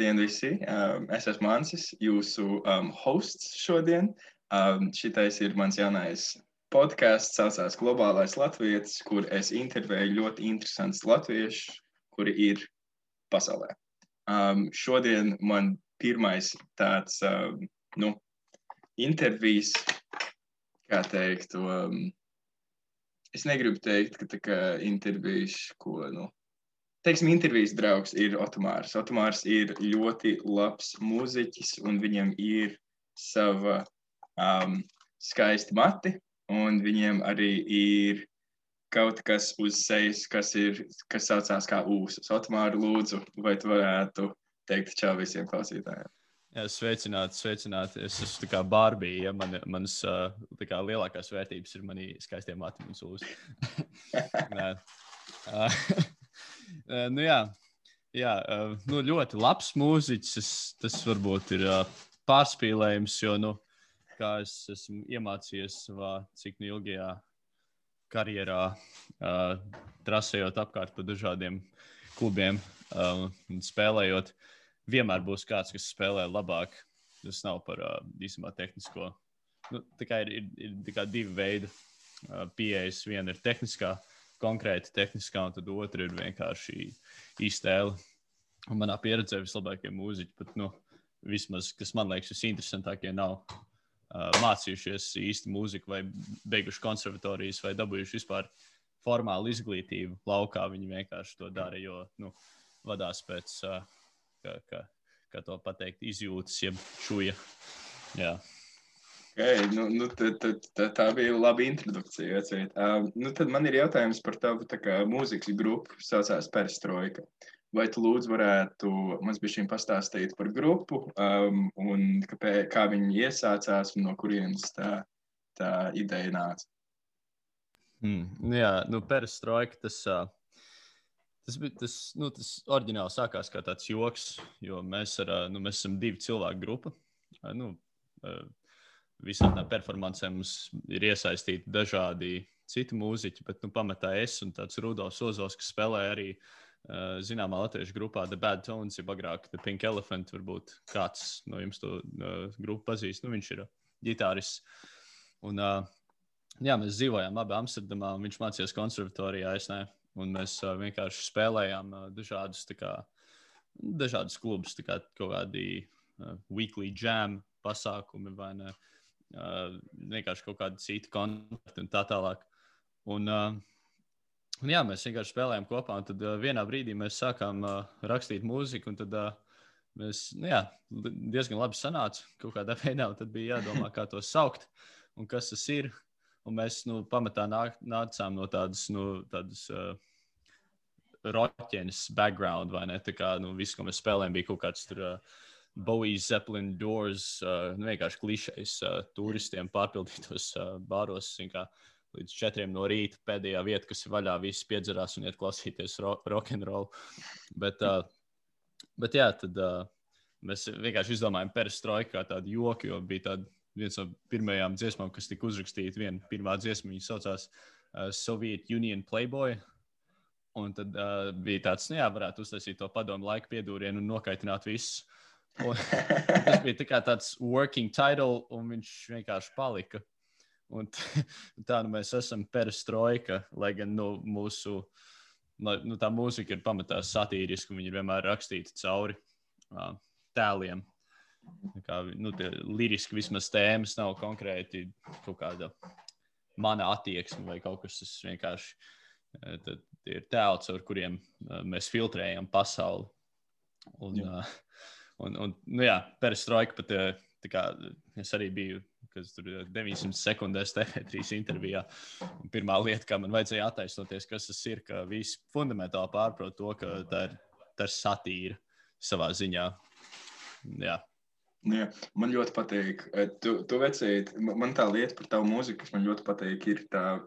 Labdien visi! Es esmu Ansis, jūsu hosts šodien. Šitais ir mans jaunais podcasts, saucās Globālais Latvietis, kur es intervēju ļoti interesants latvieši, kuri ir pasaulē. Šodien man pirmais tāds, intervijas, kā teiktu, es negribu teikt, ka tā kā intervijas, teiksim, intervijas draugs ir Otomārs. Otomārs ir ļoti labs mūziķis, un viņam ir sava skaisti mati, un viņiem arī ir kaut kas uz sejas, kas saucās kā ūsas. Otomāri, lūdzu, vai tu varētu teikt čau visiem klausītājiem? Jā, sveicināti. Es esmu tā kā Barbija, ja manas tā kā lielākās vērtības ir mani skaistie mati un ūsas. Ļoti labs mūziķis. Tas varbūt ir pārspīlējums, jo, kā es esmu iemācījies savā cik ilgajā karjerā, trasējot apkārt pa dažādiem klubiem un spēlējot, vienmēr būs kāds, kas spēlē labāk. Tas nav par īstenībā tehnisko. Tā kā ir tā kā divi veidi pieejas. Viena ir tehniskā, konkrēti tehniskā, un tad otra ir vienkārši iztēle. Un manā pieredzē vislabākie mūziķi, pat, vismaz, kas man liekas visinteresantākie, nav mācījušies īsti mūziku vai beiguši konservatorijas vai dabūjuši vispār formālu izglītību laukā. Viņi vienkārši to dara, jo, vadās pēc, kā to pateikt, izjūtas, jeb šuja. Jā. Okay, tā bija laba introdukcija. Tad man ir jautājums par tavu mūzikas grupu, saucās Perestroika. Vai tu lūdzu varētu mums bišķiņ pastāstīt par grupu un kā viņi iesācās un no kurienes tā ideja nāca? Perestroika, tas oriģināli sākās kā tāds joks, jo mēs esam divi cilvēku grupa. Visādām performancēm mums ir iesaistīti dažādi citi mūziķi, bet pamatā es un tāds Rudolfs Ozos, kas spēlē arī zināmā latviešu grupā The Bad Tones, ja agrāk The Pink Elephant, varbūt kāds no jums to grupu pazīst. Viņš ir ģitārists. Un mēs dzīvojām abi Amsterdamā, un viņš mācījās konservatorijā, es ne. Un mēs vienkārši spēlējām dažādus klubus, tā kā kaut kādi weekly jam pasākumi vai ne. Vienkārši kaut kādi citi koncerti un tā tālāk. Un mēs vienkārši spēlējām kopā, un tad vienā brīdī mēs sākām rakstīt mūziku, un tad mēs, diezgan labi sanāca kaut kādā veidā, un tad bija jādomā, kā to saukt, un kas tas ir. Un mēs, pamatā nācām no tādas roķenes background, vai ne? Tā kā, viss, ko mēs spēlējām, bija kaut kāds tur Bowie, Zeppelin, Doors, vienkārši klišejs turistiem pārpildītos bāros, līdz 4 no rīta pēdējā vieta, kas ir vaļā, visi piedzerās un iet klausīties rock'n'roll. Bet tad mēs vienkārši izdomājām Perestroika kā tādu joku, jo bija viens no pirmajām dziesmām, kas tika uzrakstīta, pirmā dziesma, viņa saucās Soviet Union Playboy. Un tad bija tāds, varētu uztaisīt to padomu laika piedūrienu un nokaitināt visus. Un tas bija tāds working title, un viņš vienkārši palika. Un tā mēs esam Perestroika, lai gan mūsu tā mūzika ir pamatā satīriska, un viņi ir vienmēr rakstīti cauri tēliem. Tie liriski vismaz tēmas nav konkrēti kaut kāda mana attieksme vai kaut kas, tas vienkārši ir tēli, caur kuriem mēs filtrējam pasauli. Un Perestroika pat, es arī biju, kas tur 900 sekundēs TV3 intervijā. Un pirmā lieta, kā man vajadzēja attaisnoties, kas tas ir, ka visi fundamentāli pārprot to, ka tā ir satīra savā ziņā. Jā. Jā, man ļoti patīk. Tu vecīt, man tā lieta par tavu mūziku, kas man ļoti patīk, ir tā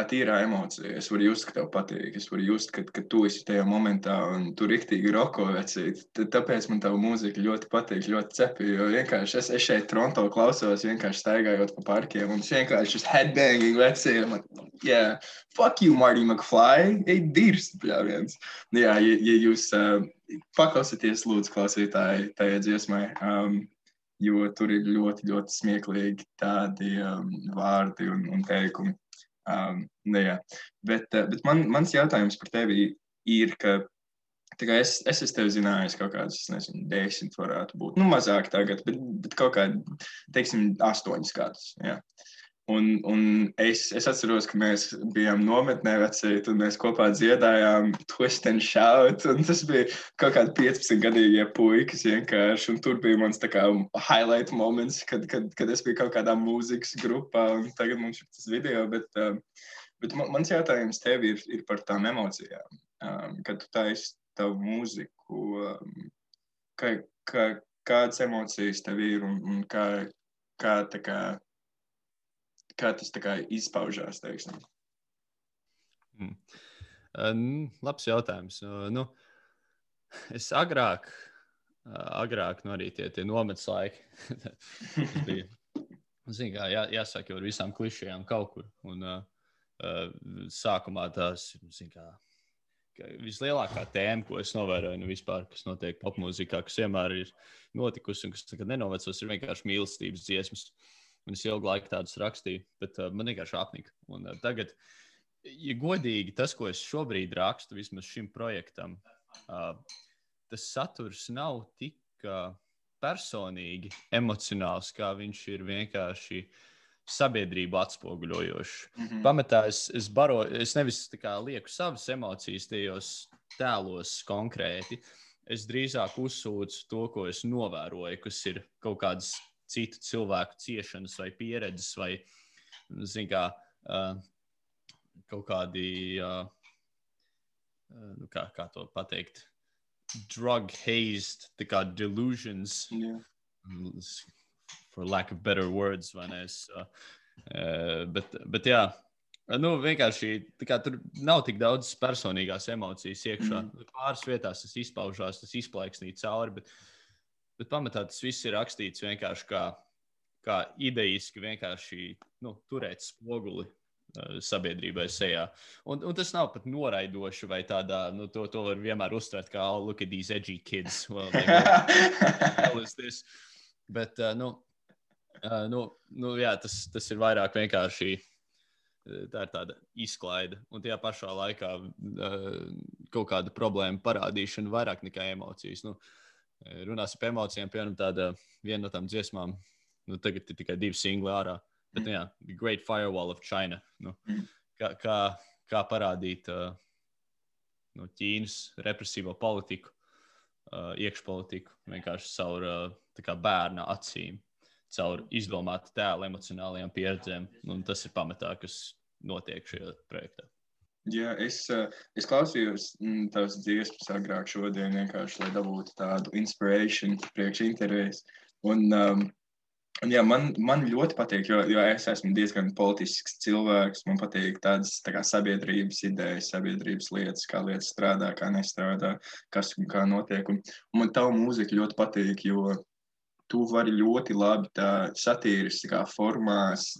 tīrā emocija. Es varu just, ka tev patīk. Es varu just, ka tu esi tajā momentā un tu riktīgi roko vecīt. Tāpēc man tava mūzika ļoti patīk, ļoti cepi. Jo vienkārši es šeit Toronto klausos, vienkārši staigājot pa parkiem un es vienkārši šis headbanging vecīt. Yeah, fuck you, Marty McFly. Ej dirst, pļāviens. Jā, ja jūs paklausieties, lūdzu, klausītāji, tajā dziesmai, jo tur ir ļoti, ļoti smieklīgi tādi vārdi un teikumi. Jā. Bet mans jautājums par tevi ir, ka es esmu tevi zinājis kaut kādus, nezinu, 10 varētu būt. Nu, mazāk tagad, bet kaut kādi, teiksim, 8 gadus. Jā. Un es atceros, ka mēs bijām nometnē vecīt, un mēs kopā dziedājām Twist and Shout, un tas bija kaut kādi 15-gadīgie puikas vienkārši, un tur bija mans tā kā highlight moments, kad es biju kaut kādā mūzikas grupā, un tagad mums ir tas video, bet mans jautājums tev ir par tām emocijām, kad tu taisi tavu mūziku, kādas emocijas tev ir, un kā tas tā kā izpaužās, teiksim? Labs jautājums. Es agrāk arī tie nometas laiki. Tas bija, zin kā, jāsaka jau ar visām klišējām kaut kur. Un sākumā tās, zin kā, vislielākā tēma, ko es novēroju vispār, kas notiek popmūzikā, kas vienmēr ir notikusi un kas nekad nenovecos, ir vienkārši mīlestības dziesmas. Un es ilgu laiku tādus rakstīju, bet man vienkārši apnika. Un tagad, ja godīgi, tas, ko es šobrīd rakstu, vismaz šim projektam, tas saturs nav tik personīgi emocionāls, kā viņš ir vienkārši sabiedrību atspoguļojošs. Pamatā es nevis tā kā lieku savas emocijas tajos tēlos konkrēti, es drīzāk uzsūcu to, ko es novēroju, kas ir kaut kādas citu cilvēku ciešanas vai pieredzes vai, zin kā, kaut kādi, kā to pateikt, drug-hazed, tā kā delusions, for lack of better words, vai ne? Bet jā, vienkārši, tā kā tur nav tik daudz personīgās emocijas iekšā. Pāris vietās tas izpaužās, tas izplaiksnī cauri, bet pamatā tas viss ir rakstīts vienkārši kā idejiski vienkārši turēt spoguli sabiedrībai sejā. Un tas nav pat noraidoši vai tādā, to var vienmēr uztvert kā, oh, look at these edgy kids. Well, hell is this? Bet, jā, tas ir vairāk vienkārši, tā ir tāda izklaide. Un tajā pašā laikā kaut kāda problēma parādīšana vairāk nekā emocijas. Runāsim par emocijām, piemēram, viena no tām dziesmām, tagad ir tikai 2 singli ārā, bet, jā, The Great Firewall of China, kā parādīt Ķīnas represīvo politiku, iekšpolitiku, vienkārši caur tā kā bērna acīm, caur izdomātu tēlu emocionālajām pieredzēm, un tas ir pamatā, kas notiek šajā projektā. Jā, es klausījos tavas dziesmas agrāk šodien vienkārši, lai dabūtu tādu inspiration priekš intervijas. Un jā, man ļoti patīk, jo es esmu diezgan politisks cilvēks. Man patīk tādas tā kā sabiedrības idejas, sabiedrības lietas, kā lietas strādā, kā nestrādā, kas un kā notiek. Un man tavu mūziku ļoti patīk, jo tu vari ļoti labi tā satīriskā formās,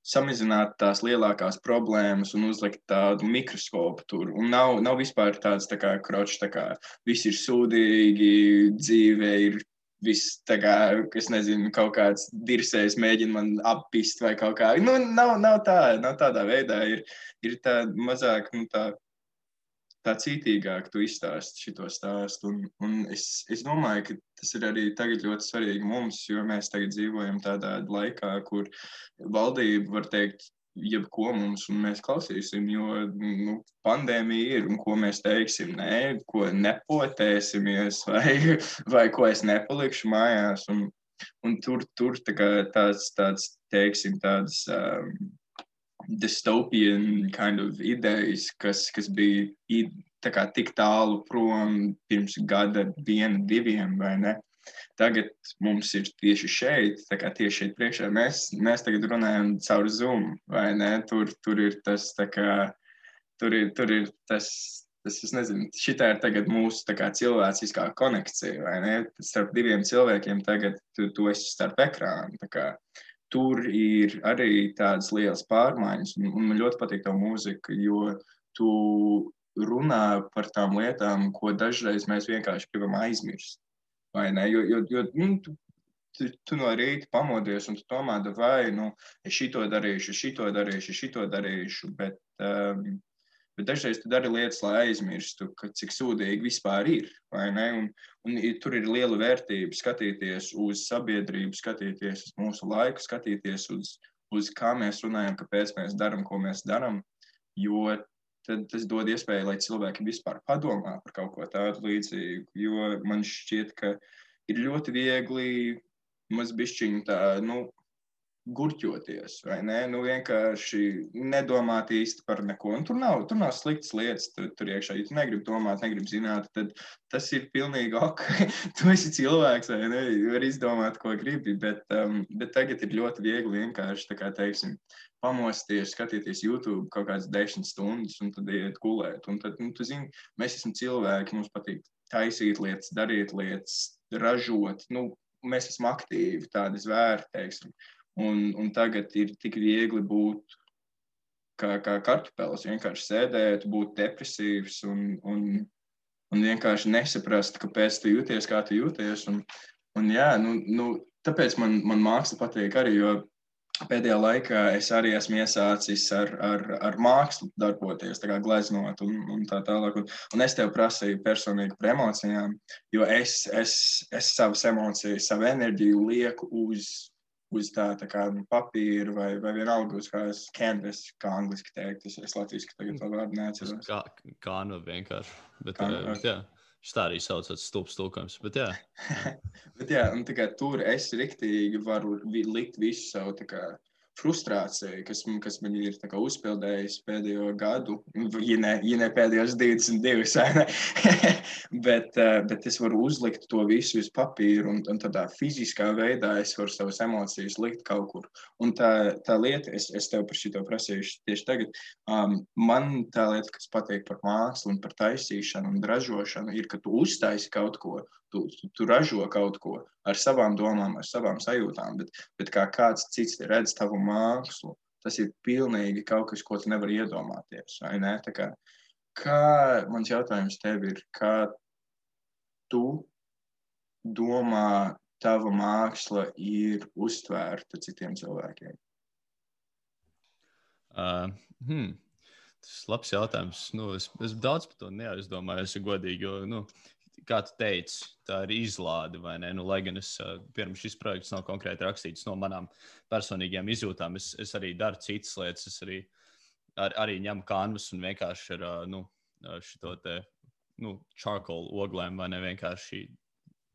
samazināt tās lielākās problēmas un uzlikt tādu mikroskopu tur. Un nav vispār tāds tā kā kročs, tā kā viss ir sūdīgi, dzīve ir viss tā kā, es nezinu, kaut kāds dirsējs mēģina man appist vai kaut kā. Nav tādā veidā. Ir tā mazāk, tā cītīgāk tu izstāsti šito stāstu. Un es domāju, ka tas ir arī tagad ļoti svarīgi mums, jo mēs tagad dzīvojam tādā laikā, kur valdība var teikt jebko mums, un mēs klausīsim, jo pandēmija ir, un ko mēs teiksim, nē, ko nepotēsimies, vai ko es nepalikšu mājās. Un tur tā kā tāds teiksim, tādas dystopian kind of idejas, kas bija tā kā tik tālu prom pirms gada 1, 2, vai ne? Tagad mums ir tieši šeit, tā kā tieši šeit priekšā. Mēs tagad runājam caur Zoom, vai ne? Tur ir tas, tā kā, tur ir tas, es nezinu, šitā ir tagad mūsu tā kā cilvēciskā konekcija, vai ne? Starp 2 cilvēkiem tagad tu esi starp ekrānu, tā kā. Tur ir arī tādas lielas pārmaiņas, un man ļoti patīk tā mūzika, jo tu runā par tām lietām, ko dažreiz mēs vienkārši gribam aizmirst. Vai ne? Jo tu no rīta pamodies un tu domā, vai, es šito darīšu, bet dažreiz tu dari lietas, lai aizmirstu, cik sūdīgi vispār ir, vai ne? Un tur ir liela vērtība skatīties uz sabiedrību, skatīties uz mūsu laiku, skatīties uz kā mēs runājam, kāpēc mēs darām, ko mēs darām, jo tad tas dod iespēju, lai cilvēki vispār padomā par kaut ko tādu līdzīgu, jo man šķiet, ka ir ļoti viegli mazbišķiņu tā, gurķoties, vai ne? Vienkārši nedomāt īsti par neko. Un tur nav sliktas lietas tur iekšā. Ja tu negribi domāt, negribi zināt, tad tas ir pilnīgi ok. Tu esi cilvēks, vai ne? Var izdomāt, ko gribi, bet tagad ir ļoti viegli vienkārši, tā kā teiksim, pamosties, skatīties YouTube kaut kādas 10 stundas un tad iet gulēt. Un tad, tu zini, mēs esam cilvēki, mums patīk taisīt lietas, darīt lietas, ražot. Mēs esam aktīvi, tādi zvēri, teiksim. Un tagad ir tik viegli būt kā kartupelis, vienkārši sēdēt, būt depresīvs un vienkārši nesaprast, kāpēc tu jūties, kā tu jūties. Un jā, tāpēc man māksla patīk arī, jo pēdējā laikā es arī esmu iesācis ar mākslu darboties, tā kā gleznot un tā tālāk. Un es tev prasīju personīgi par emocijām, jo es savas emocijas, savu enerģiju lieku uz tā kā papīra vai vienalga uz kādas canvas, kā angliski teikt. Es latviski tagad to vārdu neatceros. Kānu vienkārši. Bet jā, šis tā arī saucās stulbs tulkojums, bet jā. Bet jā, un tā kā tur es riktīgi varu likt visu savu tā kā frustrācija, kas man ir tā kā uzpildējis pēdējo gadu, ja ne pēdējos 22, ne? bet es varu uzlikt to visu uz papīru un tādā fiziskā veidā es varu savas emocijas likt kaut kur. Un tā lieta, es tev par šito prasīšu tieši tagad, man tā lieta, kas patīk par mākslu un par taisīšanu un ražošanu, ir, ka tu uztaisi kaut ko, tu ražo kaut ko ar savām domām, ar savām sajūtām, bet kā kāds cits redz tavu mākslu, tas ir pilnīgi kaut kas, ko tu nevari iedomāties, vai ne? Tā kā mans jautājums tev ir, kā tu domā tava māksla ir uztvērta citiem cilvēkiem? Tas ir labs jautājums. Es daudz par to neaizdomāju, es godīgi, jo, kā tu teici, tā ir izlāde, vai ne? Lai gan pirms šis projekts nav konkrēti rakstīts no manām personīgajām izjūtām, es arī daru citas lietas, es arī ņemu kanvas un vienkārši ar šito te, charcoal oglēm, vai ne? Vienkārši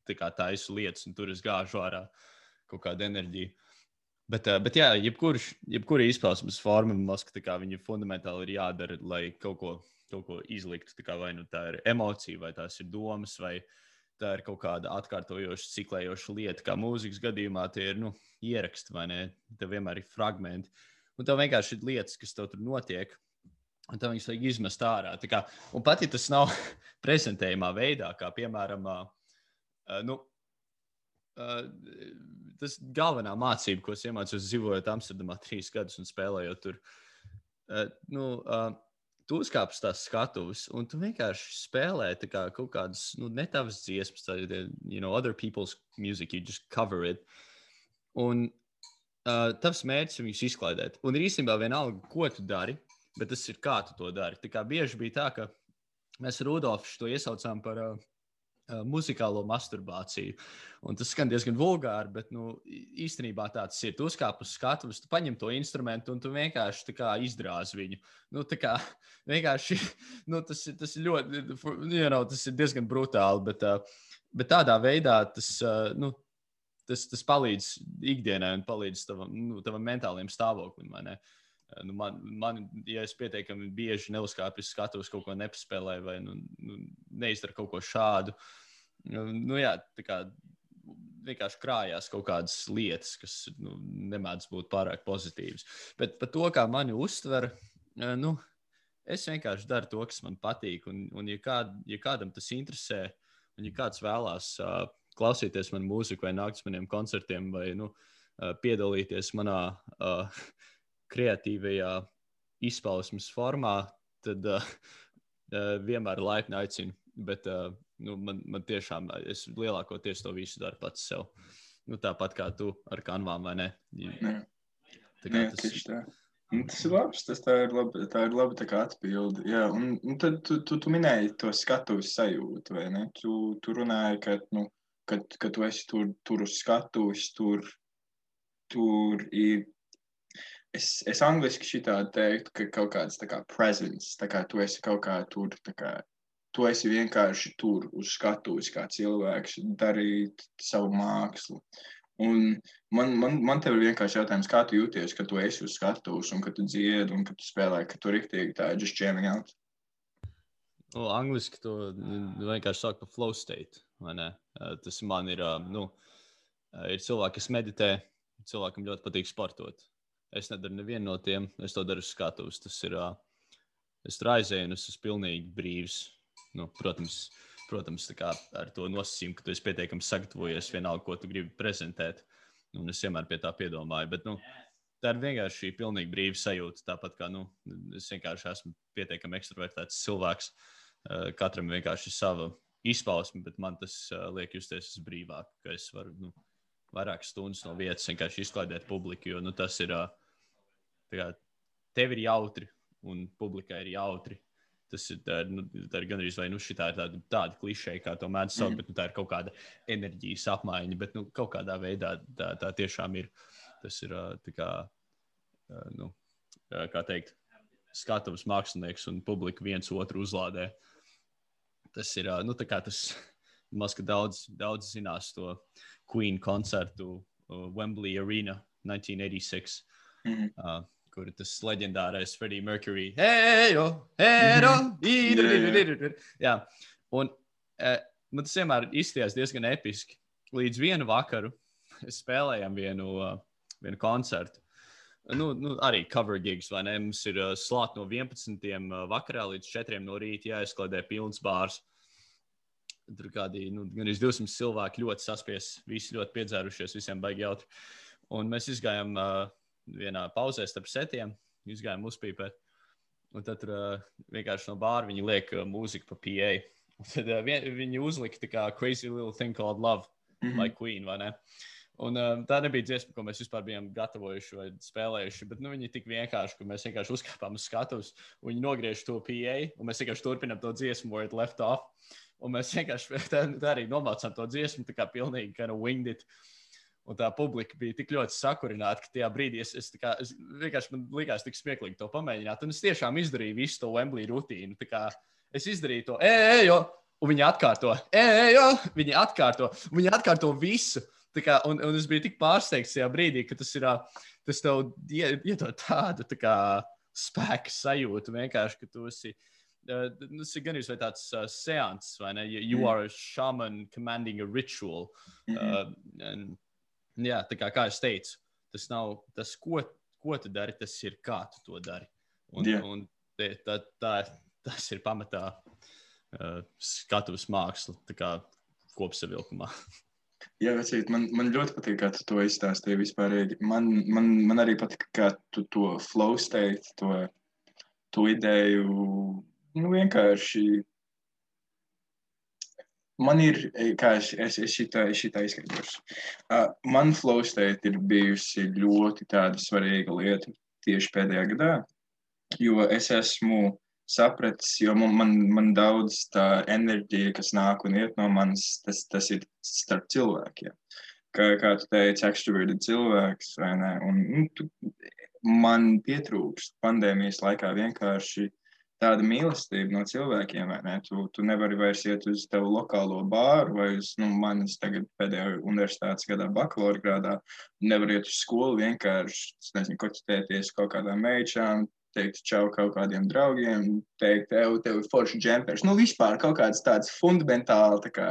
tā kā taisu lietas, un tur es gāžu ārā kaut kādu enerģiju. Bet jā, jebkura izpausmes forma, man liekas, ka viņa fundamentāli ir jādara, lai kaut ko izlikt, vai nu tā ir emocija, vai tās ir domas, vai tā ir kaut kāda atkārtojoša, ciklējoša lieta, kā mūzikas gadījumā tie ir, ieraksti, vai ne? Tev vienmēr ir fragmenti. Un tev vienkārši ir lietas, kas tev tur notiek, un tev viņas vajag izmest ārā. Un pat, ja tas nav prezentējumā veidā, kā piemēram, tas galvenā mācība, ko es iemācījos dzīvojot Amsterdamā 3 gadus un spēlējot tur, tu uzkāp uz tās skatuves, un tu vienkārši spēlē kaut kādas, ne tavas dziesmas, other people's music, you just cover it. Un tavs mērķis ir viņus izklaidēt. Un ir īstenībā vienalga, ko tu dari, bet tas ir kā tu to dari. Bieži bija tā, ka mēs ar Rudolfu to iesaucām par muzikālo masturbāciju. Un tas skan diezgan vulgāri, bet īstenībā tāds ir. Tu uzkāp uz skatuves, tu paņem to instrumentu un tu vienkārši izdrāz viņu. Vienkārši, tas ir ļoti, tas ir diezgan brutāli, bet tādā veidā tas palīdz ikdienai un palīdz tavam mentālajiem stāvoklim, vai ne? Man, ja es pietiekami bieži neuzkāpju uz skatuves, kaut ko nepaspēlēju vai neizdaru kaut ko šādu, jā, vienkārši krājās kaut kādas lietas, kas nemēdz būt pārāk pozitīvas. Bet par to, kā mani uztver, es vienkārši daru to, kas man patīk, un ja kādam tas interesē, un ja kāds vēlās klausīties manu mūziku vai nākt uz maniem koncertiem vai piedalīties manā kreatīvajā izpausmes formā, tad vienmēr laipni aicinu, bet man tiešām, es lielākoties to visu daru pats sev. Tāpat kā tu ar kanvām, vai ne? Tieši tā. Tas ir labs, tā ir laba tā kā atbilde. Jā, un tad tu minēji to skatuves sajūtu, vai ne? Tu runāji, ka tu esi tur uz skatuves, tur ir. Es angliski šitādi teiktu, ka kaut kāds tā kā presence, tā kā tu esi kaut kā tur, tā kā tu esi vienkārši tur uz skatuves kā cilvēks darīt savu mākslu. Un man tev ir vienkārši jautājums, kā tu jūties, ka tu esi uz skatuves un ka tu dziedi un ka tu spēlē, ka tu riktīgi tā just jamming out? Angliski to vienkārši sāk par flow state, vai ne? Tas man ir, ir cilvēki, kas meditē, cilvēkam ļoti patīk sportot. Es nedaru nevienu no tiem, es to daru uz skatuves. Tas ir, es tur aizēju un es esmu pilnīgi brīvs. Protams, tā kā ar to nosacījumu, ka tu esi pietiekami sagatavojies vienalga, ko tu gribi prezentēt. Un es vienmēr pie tā piedomāju, bet, tā ir vienkārši pilnīgi brīva sajūta. Tāpat kā, es vienkārši esmu pietiekami ekstravertēts cilvēks. Katram vienkārši ir sava izpausme, bet man tas liek justies brīvāk, ka es varu, vairākas stundas no vietas vienkārši izklaidēt publiku, jo tas ir, tev ir jautri un publikai ir jautri. Tas ir, tā ir gandrīz vai šitā ir tāda klišeja, kā to mēdz saukt, bet tā ir kaut kāda enerģijas apmaiņa, bet kaut kādā veidā tā tiešām ir. Tas ir tā kā, kā teikt, skatuves mākslinieks un publika viens otru uzlādē. Tas ir, tā kā tas, maz, ka daudz zinās to Queen koncertu Wembley Arena 1986, kur ir tas leģendārais Freddie Mercury. Jā, un man tas vienmēr izskatījās diezgan episki. Līdz vienu vakaru spēlējām vienu koncertu. Arī cover gigs, vai ne? Mums ir slāt no 11. vakarā līdz 4. no rīta jāizkladē pilns bārs. Tur kādi, gan 200 cilvēki ļoti saspies, visi ļoti piedzērušies, visiem baigi jautri. Un mēs izgājām vienā pauzē starp setiem, izgājām uzpīpēt. Un tad vienkārši no bāra viņi liek mūziku pa PA. Un tad viņi uzlika tā kā Crazy Little Thing Called Love, like Queen, vai ne? Un tā nebija dziesma, ko mēs vispār bijām gatavojuši vai spēlējuši, bet viņi tik vienkārši, ka mēs vienkārši uzkāpām uz skatuves, un viņi nogriež to PA, un mēs vienkārši turpinām to dziesmu, where it left off. Un mēs vienkārši tā arī nomācām to dziesmu, tā kā pilnīgi kind of winged it. Un tā publika bija tik ļoti sakurināta, ka tajā brīdī es vienkārši man likās tik smieklīgi to pamēģināt. Un es tiešām izdarīju visu to Wembley rutīnu. Tā kā es izdarīju to, un viņi atkārto, viņi atkārto visu. Tā kā, un es biju tik pārsteigts tajā brīdī, ka tas tev iedod tādu tā kā spēku sajūtu vienkārši, ka tu esi. Tas ir gan vai tāds seans, vai ne? You are a shaman commanding a ritual. Jā, tā kā es teicu, tas nav tas, ko tu dari, tas ir kā tu to dari. Un tas ir pamatā skatuves māksla, tā kā kopsavilkumā. Jā, vecīt, man ļoti patīk, kā tu to izstāstīji vispārīgi. Man arī patīk, kā tu to flow state, to ideju, vienkārši. Man ir, kā es šitā izskaidrošu. Man flow state ir bijusi ļoti tāda svarīga lieta tieši pēdējā gadā, jo es esmu sapratis, jo man daudz tā enerģija, kas nāk un iet no manis, tas ir starp cilvēkiem. Kā tu teici, extroverted cilvēks, vai ne? Un man pietrūkst pandēmijas laikā vienkārši tāda mīlestība no cilvēkiem, vai ne? Tu nevari vairs iet uz tevu lokālo bāru vai uz, manis tagad pēdējā universitātes gadā bakalaura grādā, nevar iet uz skolu vienkārši, nezinu, koķitēties kaut kādām meičām, teikt čau kaut kādiem draugiem, teikt, tev ir forši džempers. Vispār kaut kāds tāds fundamentāli, tā kā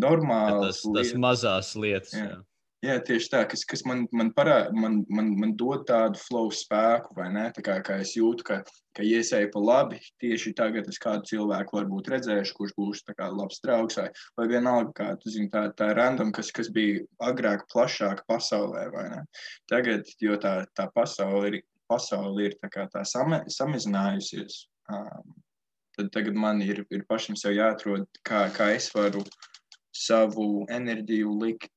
normāls tas mazās lietas, jā. Jā, tieši tā, kas man dod tādu flow spēku, vai ne? Tā kā es jūtu, ka iesēju pa labi, tieši tagad es kādu cilvēku varbūt redzēšu, kurš būs tā kā labs draugs, vai vienalga, kā tu zini, tā random, kas bija agrāk plašāka pasaulē, vai ne? Tagad, jo tā pasaule ir tā kā tā samazinājusies, tad tagad man ir pašam sev jāatrod, kā es varu savu enerģiju likt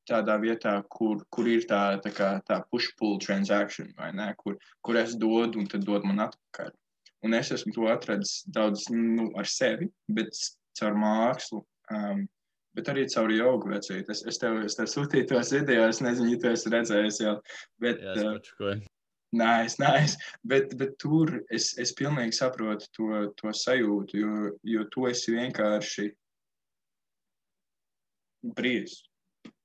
tādā vietā, kur ir tā push-pull transaction, vai ne, kur es dodu un tad dod man atpakaļ. Un es esmu to atradis daudz ar sevi, bet caur mākslu, bet arī caur jogu vecīt. Es tev sūtīju tos video, es nezinu, ja tu esi redzējis jau. Bet, Jā, es pačukoju. Nice. Bet tur es pilnīgi saprotu to sajūtu, jo tu esi vienkārši brīvs.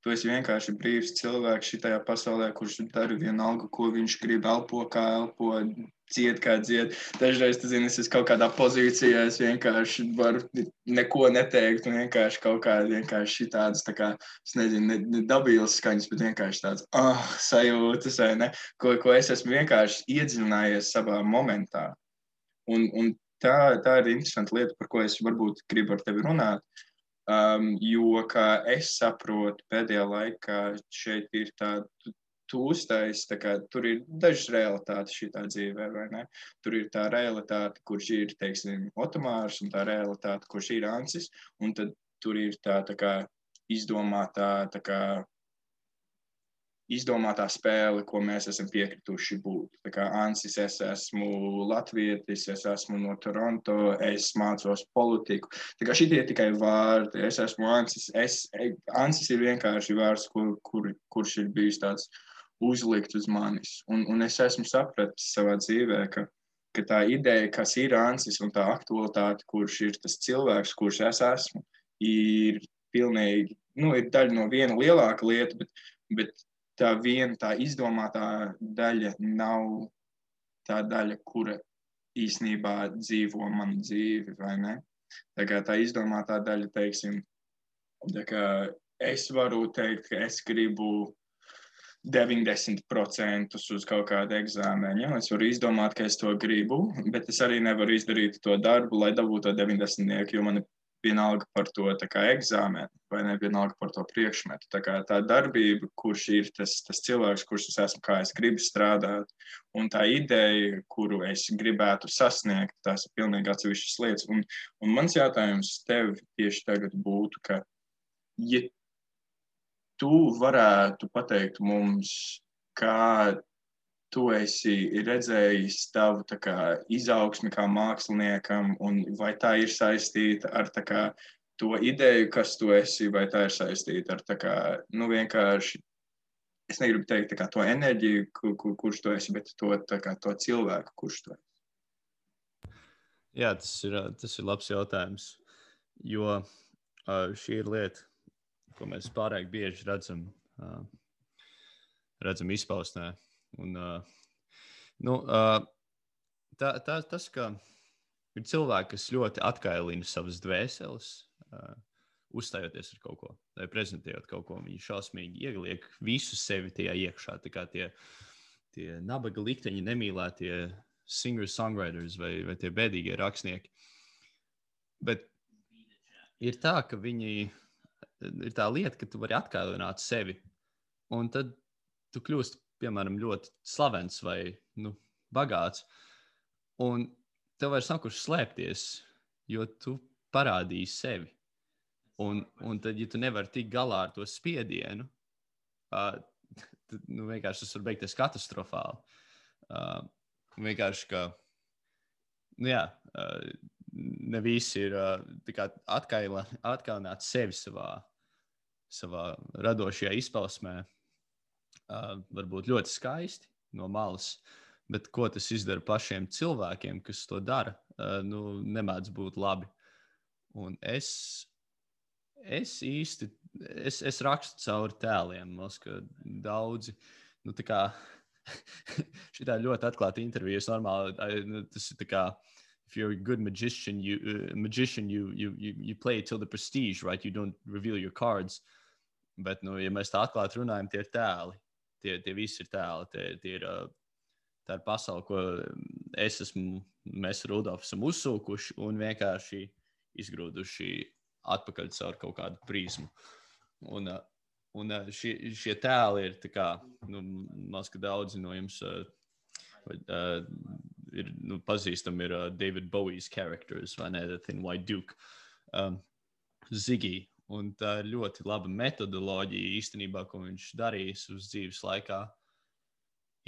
Tu esi vienkārši brīvs cilvēks šitajā pasaulē, kurš dara vienalga, ko viņš grib, elpo, kā elpo, dzied, kā dzied. Dažreiz, tu zini, es esmu kaut kādā pozīcijā, es vienkārši varu neko neteikt, un vienkārši kaut kādi vienkārši šitādas, tā kā, es nezinu, ne dabīlas skaņas, bet vienkārši tāds, sajūtas, vai ne, ko es esmu vienkārši iedziļinājies savā momentā. Un tā ir interesanta lieta, par ko es varbūt gribu ar tevi runāt. Jo, kā es saprotu, pēdējā laikā šeit ir tāda tūstais, tur ir dažas realitātes šitā dzīvē, vai ne? Tur ir tā realitāte, kurš ir, teiksim, Otomārs, un tā realitāte, kurš ir Ancis, un tad tur ir tā kā izdomātā spēle, ko mēs esam piekrituši būt. Tā kā Ancis, es esmu latvietis, es esmu no Toronto, es mācos politiku. Tā kā šitie tikai vārdi, es esmu Ancis. Ancis ir vienkārši vārds, kurš ir bijis tāds uzlikt uz manis. Un es esmu sapratis savā dzīvē, ka tā ideja, kas ir Ancis un tā aktualitāte, kurš ir tas cilvēks, kurš es esmu, ir pilnīgi, ir daļa no viena lielāka lieta, bet tā izdomātā daļa nav tā daļa, kura īsnībā dzīvo manu dzīvi, vai ne? Tā kā tā izdomātā daļa, teiksim, tā kā es varu teikt, ka es gribu 90% uz kaut kādu eksāmenu. Ja? Es varu izdomāt, ka es to gribu, bet es arī nevaru izdarīt to darbu, lai dabūtu to 90, jo man ir vienalga par to eksāmenu, vai ne vienalga par to priekšmetu. Tā darbība, kurš ir tas cilvēks, kurš es esmu, kā es gribu strādāt, un tā ideja, kuru es gribētu sasniegt, tās ir pilnīgi atsevišķas lietas. Un mans jautājums tev tieši tagad būtu, ka, ja tu varētu pateikt mums, kā tu esi redzējis tavu izaugsmi kā māksliniekam, un vai tā ir saistīta ar to ideju, kas tu esi, vai tā ir saistīta ar vienkārši, es negribu teikt to enerģiju, kurš tu esi, bet to cilvēku, kurš tu esi. Jā, tas ir labs jautājums, jo šī ir lieta, ko mēs pārāk bieži redzam izpausmē. Un, tas, ka ir cilvēki, kas ļoti atkailina savas dvēseles, uzstājoties ar kaut ko, vai prezentējot kaut ko, viņi šausmīgi ieliek visu sevi tajā iekšā. Tā kā tie nabaga likteņi, nemīlētie singer-songwriters vai tie bēdīgie rakstnieki. Bet ir tā, ka viņi ir tā lieta, ka tu vari atkailināt sevi, un tad tu kļūsti, piemēram, ļoti slavens vai bagāts, un tev vairs nav kur slēpties, jo tu parādīji sevi. Un tad, ja tu nevari tikt galā ar to spiedienu, tad vienkārši tas var beigties katastrofāli. Vienkārši, ka ne visi ir atkailināt sevi savā radošajā izpausmē. Varbūt ļoti skaisti no malas, bet ko tas izdara pašiem cilvēkiem, kas to dara, nemēdz būt labi. Un es rakstu cauri tēliem, ka daudzi, šitā ļoti atklāta intervija, normāli, tas ir tā kā, if you're a good magician, you play till the prestige, right? You don't reveal your cards. Bet, ja mēs tā atklāti runājam, tie ir tēli. Tie visi ir tēli. Tā ir pasaule, ko mēs ar Rudolfu esam uzsūkuši un vienkārši izgrūduši atpakaļ caur kaut kādu prizmu. Un šie tēli ir tā kā, man liekas, ka daudzi no jums ir pazīstami ir David Bowie's characters, vai ne, The Thin White Duke, Ziggy. Un tā ir ļoti laba metodoloģija īstenībā, ko viņš darījis uz dzīves laikā.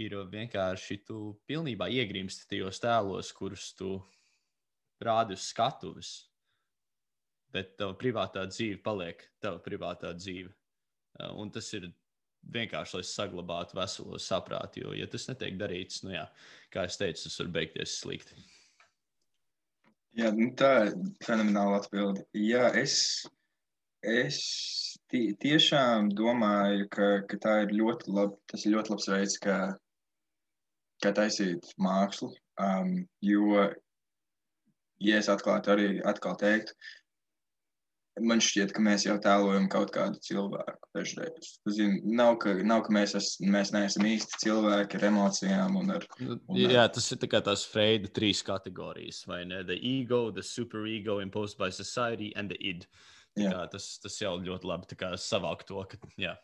Ir vienkārši tu pilnībā iegrimsti tajos tēlos, kurus tu rādi uz skatuves, bet tava privātā dzīve paliek tava privātā dzīve. Un tas ir vienkārši, lai saglabātu veselo saprātu, jo, ja tas netiek darīts, nu jā, kā es teicu, tas var beigties slikti. Jā, tā ir fenomenāla atbilde. Jā, es tiešām domāju, ka tā ir tas ir ļoti labs veids, kā taisīt mākslu, jo, ja es atkal teiktu, man šķiet, ka mēs jau tēlojam kaut kādu cilvēku dažreiz. Nav, ka mēs neesam īsti cilvēki ar emocijām un ar... Jā, tas ir tā kā tās Freida 3 kategorijas, vai ne? The ego, the superego imposed by society and the id. Tas jau ļoti labi savāk to, ka jā,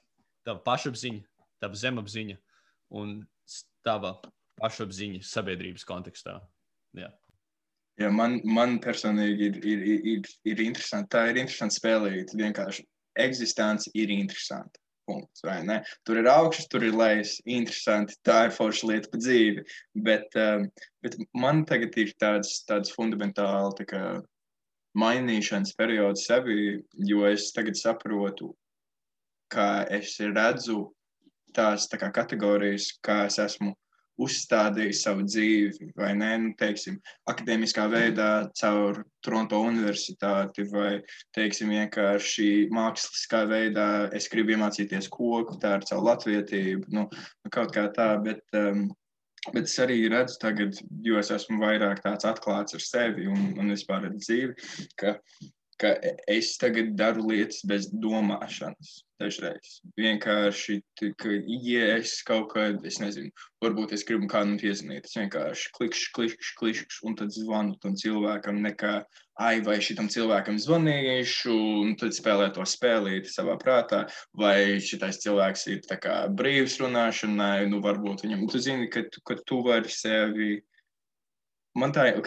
tava pašapziņa, tava zemapziņa un tava pašapziņa sabiedrības kontekstā. Jā. Jā, man personīgi ir interesanti. Tā ir interesanti spēlīt. Vienkārši eksistence ir interesanti. Punkts, vai ne? Tur ir augšas, tur ir lejas. Interesanti. Tā ir forša lieta pa dzīvi. Bet man tagad ir tāds fundamentāli mainīšanas periods sevi, jo es tagad saprotu, ka es redzu tās kategorijas, kā es esmu uzstādījis savu dzīvi, vai ne, teiksim, akadēmiskā veidā caur Toronto universitāti, vai, teiksim, vienkārši māksliskā veidā es gribu iemācīties koku, tā ir caur latvietību, kaut kā tā, bet es arī redzu tagad, jo es esmu vairāk tāds atklāts ar sevi un vispār ar dzīvi, ka es tagad daru lietas bez domāšanas dažreiz. Vienkārši, ja es kaut kad, es nezinu, varbūt es gribu kādam piezvanīt, es vienkārši klikšķi, un tad zvanu tam cilvēkam nekā, vai šitam cilvēkam zvanīšu, un tad spēlē to spēlīti savā prātā, vai šitais cilvēks ir tā kā brīvs runāšanai, varbūt viņam, tu zini, ka tu vari sevi... Man tā ir,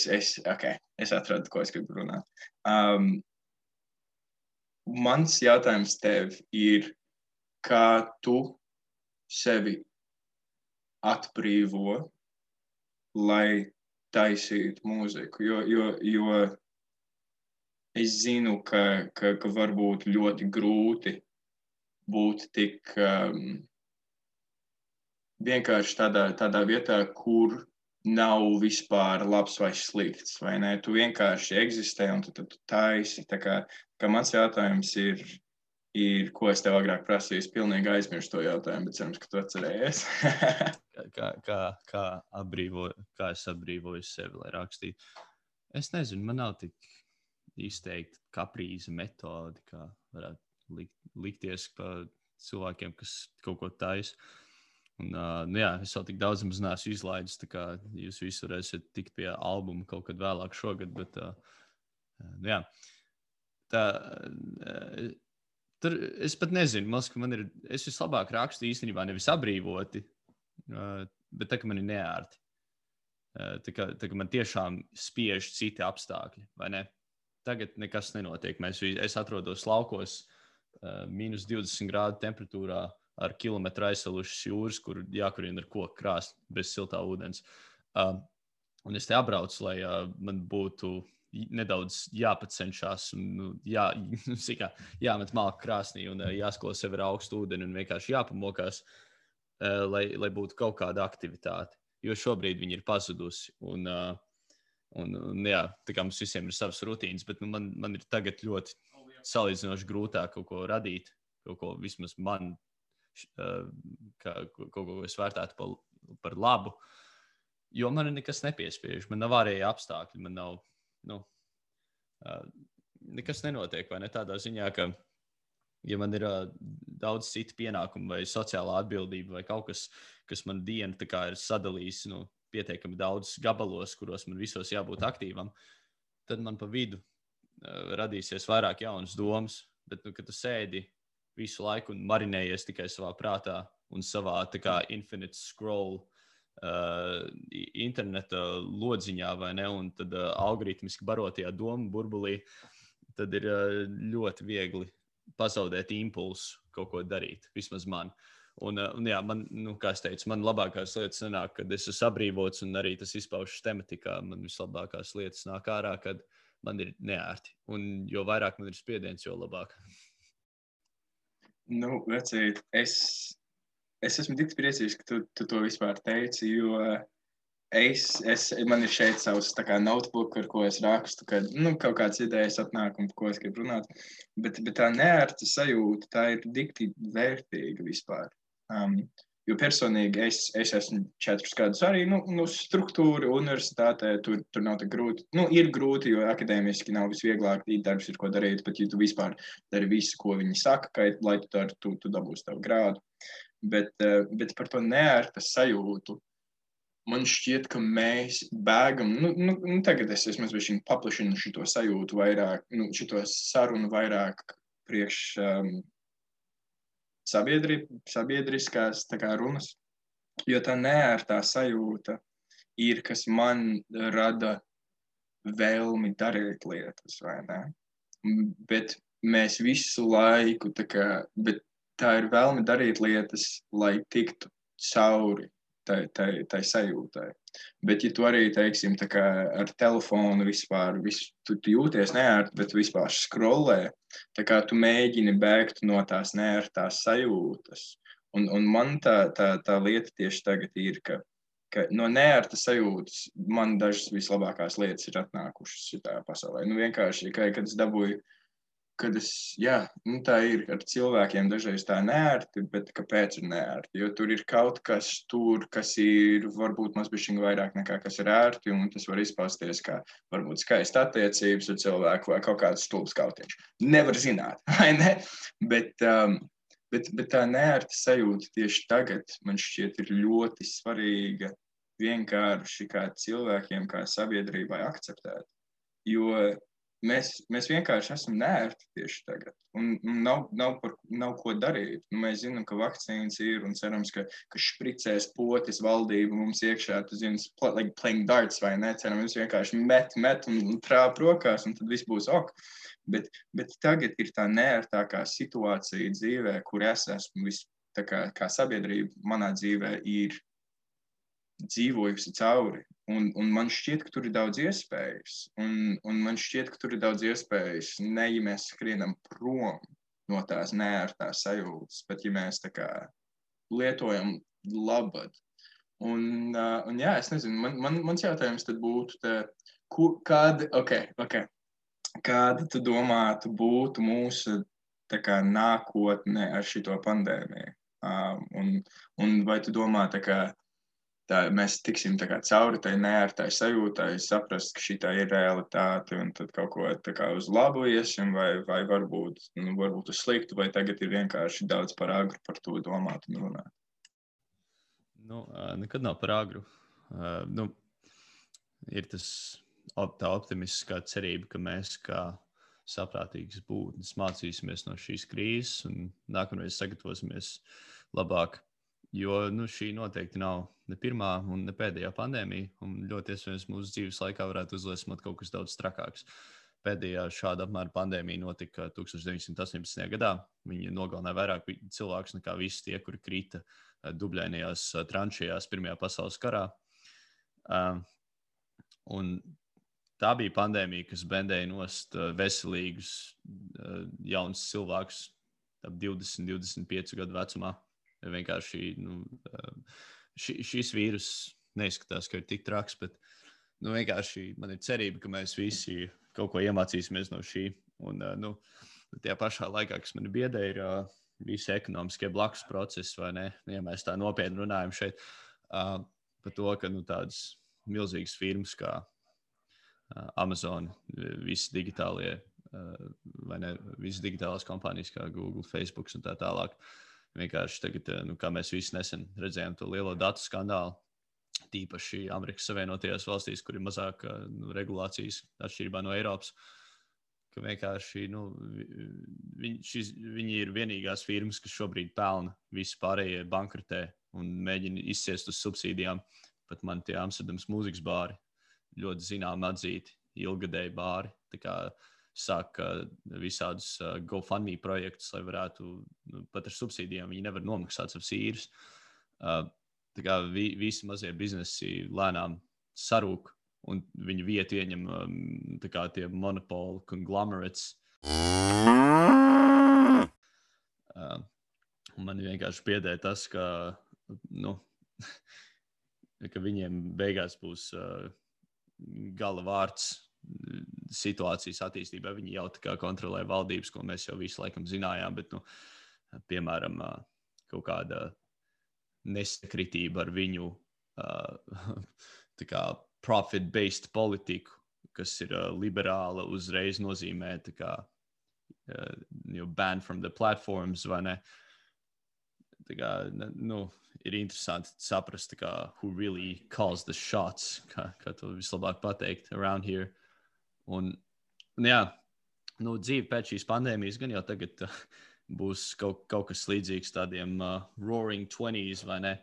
es atradu, ko es gribu runāt. Mans jautājums tev ir, kā tu sevi atbrīvo, lai taisītu mūziku, jo es zinu, ka varbūt ļoti grūti būt tik vienkārši tādā vietā, kur nav vispār labs vai slikts, vai ne? Tu vienkārši eksistē un tu taisi. Tā kā mans jautājums ir, ko es tev agrāk prasīju, es pilnīgi aizmirstu to jautājumu, bet cerams, ka tu atcerējies. kā es atbrīvoju sevi, lai rakstītu? Es nezinu, man nav tik izteikti kaprīza metodi, kā varētu likties pa cilvēkiem, kas kaut ko taisa. Un, jā, es vēl tik daudz maz neesmu izlaidis, tā kā jūs visi varēsiet tikt pie albuma kaut kad vēlāk šogad, bet jā. Tur es pat nezinu, es vislabāk rakstu īstenībā nevis atbrīvoti, bet tā, ka man ir neērti. Tā, ka man tiešām spiež citi apstākļi, vai ne? Tagad nekas nenotiek. Es atrodos laukos minus 20 grādu temperatūrā, ar kilometru aizsalušas jūras, kur jākurina ar koku krāstu bez siltā ūdens. Un es te apbraucu, lai man būtu nedaudz jāpacenšās un jāmet malku krāsnī un jāskalo sevi ar augstu ūdeni un vienkārši jāpamokās, lai būtu kaut kāda aktivitāte. Jo šobrīd viņi ir pazudusi. Un jā, tā kā mums visiem ir savas rutīnas, bet man ir tagad ļoti salīdzinoši grūtāk kaut ko radīt, kaut ko vismaz man kaut ko es vērtētu par labu, jo man nekas nepiespiež, man nav ārēji apstākļi, man nav, nekas nenotiek, vai ne tādā ziņā, ka, ja man ir daudz citu pienākumu vai sociālā atbildība vai kaut kas, kas man diena tā kā ir sadalījis, pietiekami daudz gabalos, kuros man visos jābūt aktīvam, tad man pa vidu radīsies vairāk jaunas domas, bet, kad tu sēdi visu laiku un marinējies tikai savā prātā un savā tā kā infinite scroll interneta lodziņā, vai ne, un tad algoritmiski barotajā domu burbulī, tad ir ļoti viegli pazaudēt impulsu kaut ko darīt, vismaz man. Un jā, man, kā es teicu, man labākās lietas nenāk, kad es esmu sabrīvots, un arī tas izpaužas tematikā. Man vislabākās lietas nāk ārā, kad man ir neērti. Un jo vairāk man ir spiediens, jo labāk. Nu, vecīt, es esmu tik priecīgs, ka tu to vispār teici, jo man ir šeit savs tā kā notebook, ar ko es rakstu, kad kaut kādas idejas atnāk un par ko es gribu runāt. Bet tā neērta sajūta, tā ir dikti vērtīga vispār. Jo personīgi es esmu 4 gadus arī struktūra universitātē, tur nav tā grūti. Ir grūti, jo akadēmiski nav visvieglāk, darbs ir ko darīt, bet ja tu vispār dari visu, ko viņi saka, lai tu dari, tu dabūsi tavu grādu. Bet par to neērta sajūtu, man šķiet, ka mēs bēgam, tagad es esmu paplašinu šito sajūtu vairāk, šito sarunu vairāk priekš sabiedriskās tā kā runas, jo tā neērtā sajūta ir, kas man rada vēlmi darīt lietas, vai ne? Bet mēs visu laiku, bet tā ir vēlme darīt lietas, lai tiktu cauri tai sajūtai. Bet, ja tu arī, teiksim, tā kā ar telefonu vispār, tu jūties neērti, bet vispār scrollē, tā kā tu mēģini bēgt no tās neērtās sajūtas. Un man tā lieta tieši tagad ir, ka no neērtas sajūtas man dažas vislabākās lietas ir atnākušas šitā pasaulē. Vienkārši, kad es dabūju, tā ir ar cilvēkiem dažreiz tā neērti, bet kāpēc ir neērti? Jo tur ir kaut kas tur, kas ir varbūt mazbišķiņ vairāk nekā kas ir ērti, un tas var izpausties kā varbūt skaista attiecības ar cilvēku vai kaut kāds stulbs kautiņš. Nevar zināt, vai ne? Bet tā neērta sajūta tieši tagad, man šķiet, ir ļoti svarīga vienkārši kā cilvēkiem, kā sabiedrībai akceptēt. Jo mēs vienkārši esam neērti tieši tagad, un nav ko darīt. Mēs zinām, ka vakcīnas ir, un cerams, ka špricēs potis valdība mums iekšā, tu zini, like playing darts, vai ne? Cerams, vienkārši met un trāp rokās, un tad viss būs ok. Bet tagad ir tā neērtākā situācija dzīvē, kur es esmu kā sabiedrība manā dzīvē ir dzīvojusi cauri. Un man šķiet, ka tur ir daudz iespējas. Un man šķiet, ka tur ir daudz iespējas, ne ja mēs skrienam prom no tās neērtās sajūtas, bet ja mēs tā kā lietojam labad. Un jā, es nezinu, mans jautājums tad būtu, kāda tu domātu būtu mūsu tā kā nākotne ar šito pandēmiju? Un vai tu domā tā kā mēs tiksim tā kā cauri tai neērtai sajūtai, saprast, ka šitā ir realitāte, un tad kaut ko tā kā uz labu iesim, vai varbūt uz sliktu, vai tagad ir vienkārši daudz par agru par to domāt un runāt? Nekad nav par agru. Ir tā optimistiskā cerība, ka mēs kā saprātīgas būtnes mācīsimies no šīs krīzes un nākamreiz sagatavosimies labāk. Jo šī noteikti nav ne pirmā un ne pēdējā pandēmija, un ļoti iespējams mūsu dzīves laikā varētu uzliesmot kaut kas daudz trakāks. Pēdējā šāda apmēra pandēmija notika 1918. gadā. Viņa nogalināja vairāk cilvēkus nekā visi tie, kuri krita dubļainajās tranšējās Pirmajā pasaules karā. Un tā bija pandēmija, kas bendēja nost veselīgus jaunus cilvēkus ap 20-25 gadu vecumā. Vienkārši šis vīrus neizskatās, ka ir tik traks, bet vienkārši man ir cerība, ka mēs visi kaut ko iemācīsimies no šī. Un tajā pašā laikā, kas mani biedē, ir visi ekonomiskie blakus procesi, vai ne? Ja mēs tā nopietni runājam šeit par to, ka tādas milzīgas firmas kā Amazon, visi digitālie, vai ne, visas digitālās kompānijas kā Google, Facebook un tā tālāk. Vienkārši tagad, kā mēs visi nesen redzējām to lielo datu skandālu, tīpaši Amerikas Savienotajās valstīs, kur ir mazāk regulācijas atšķirībā no Eiropas, ka vienkārši viņi ir vienīgās firmas, kas šobrīd pelna, visi pārējie bankrotē, un mēģina izciest uz subsīdijām. Pat man tie Amsterdams mūzikas bāri ļoti zinām atzīti, ilgadēji bāri. Tā kā sāk visādus GoFundMe projektus, lai varētu pat ar subsīdijām, viņi nevar nomaksāt savas īres. Tā kā visi mazie biznesi lēnām sarūk, un viņu vietu ieņem tā kā tie monopoli conglomerates. Man vienkārši biedē tas, ka, ka viņiem beigās būs gala vārds situācijas attīstībā. Viņi jau tā kā kontrolē valdības, ko mēs jau visu laikam zinājām, bet, piemēram, kaut kāda nesakritība ar viņu tā kā profit-based politiku, kas ir liberāla, uzreiz nozīmē tā kā ban from the platforms, vai ne? Tā kā, ir interesanti saprast, tā kā, who really calls the shots, kā to vislabāk pateikt around here. Un jā, dzīve pēc šīs pandēmijas gan jau tagad būs kaut kas līdzīgs tādiem roaring 20s, vai ne?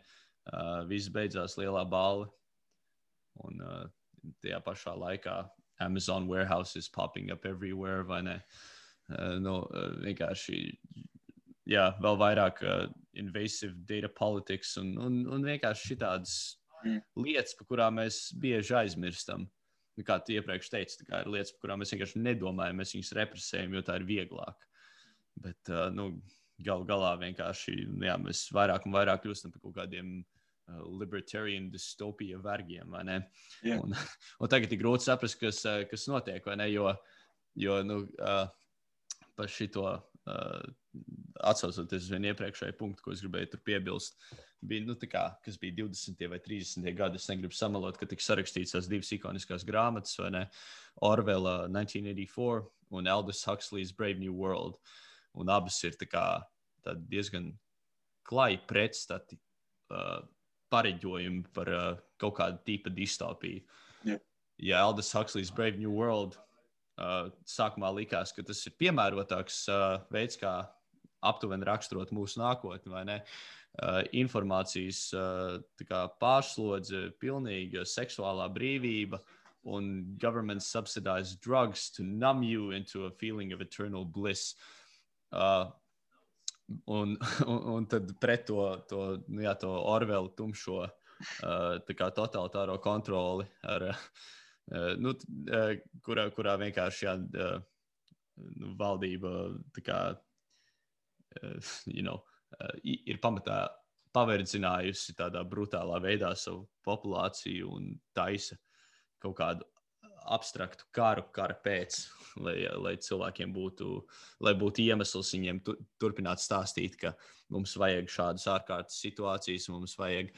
Viss beidzās lielā balva. Un tajā pašā laikā Amazon warehouses popping up everywhere, vai ne? Vienkārši, jā, vēl vairāk invasive data politics un vienkārši šitādas lietas, par kurām mēs bieži aizmirstam. Kā tu iepriekš teici, tā kā ir lietas, par kurām mēs vienkārši nedomājam, mēs viņus represējam, jo tā ir vieglāk. Bet, galu galā vienkārši, jā, mēs vairāk un vairāk kļūstam par kaut kādiem libertarian dystopija vergiem, vai ne? Yeah. Un tagad ir grūti saprast, kas notiek, vai ne? Jo par šito atsaucoties uz vienu iepriekšēju punktu, ko es gribēju tur piebilst, bija, tā kā, kas bija 20. vai 30. gadi, es negribu samalot, ka tika sarakstīts tās divas ikoniskās grāmatas, vai ne? Orwella 1984 un Aldous Huxley's Brave New World. Un abas ir tā kā diezgan klāji pretstati pareģojumi par kaut kādu tipa distopiju. Yeah. Ja Aldous Huxley's Brave New World sākumā likās, ka tas ir piemērotāks veids, kā aptuveni raksturot mūsu nākotni, vai ne? Informācijas tā kā pārslodze, pilnīga seksuālā brīvība un government subsidized drugs to numb you into a feeling of eternal bliss. Un tad pret to Orwellu tumšo tā kā totalitāro kontroli ar kurā vienkārši valdība tā kā, ir pamatā paverdzinājusi tādā brutālā veidā savu populāciju un taisa kaut kādu abstraktu kara pēc, lai cilvēkiem būtu iemesls viņiem turpināt stāstīt, ka mums vajag šādas ārkārtas situācijas, mums vajag,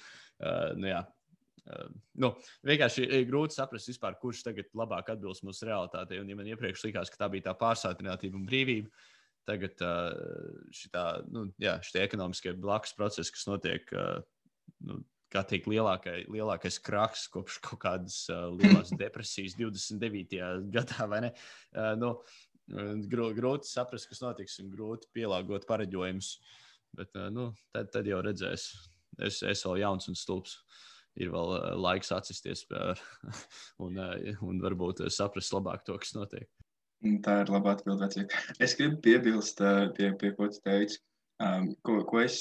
vienkārši ir grūti saprast vispār, kurš tagad labāk atbilst mūsu realitātei. Un ja man iepriekš likās, ka tā bija tā pārsātinātība un brīvība, tagad šitie ekonomiskie blakus procesi, kas notiek, kā teikt, lielākais kraks kopš kaut kādas lielās depresijas 29. gadā, vai ne? Grūti saprast, kas notiks, un grūti pielāgot pareģojumus. Bet, tad jau redzēs. Es vēl jauns un stulbs. Ir vēl laiks atsisties un varbūt saprast labāk to, kas notiek. Tā ir laba atbilde, vecīt. Es gribu piebilst pie ko tu teici, ko es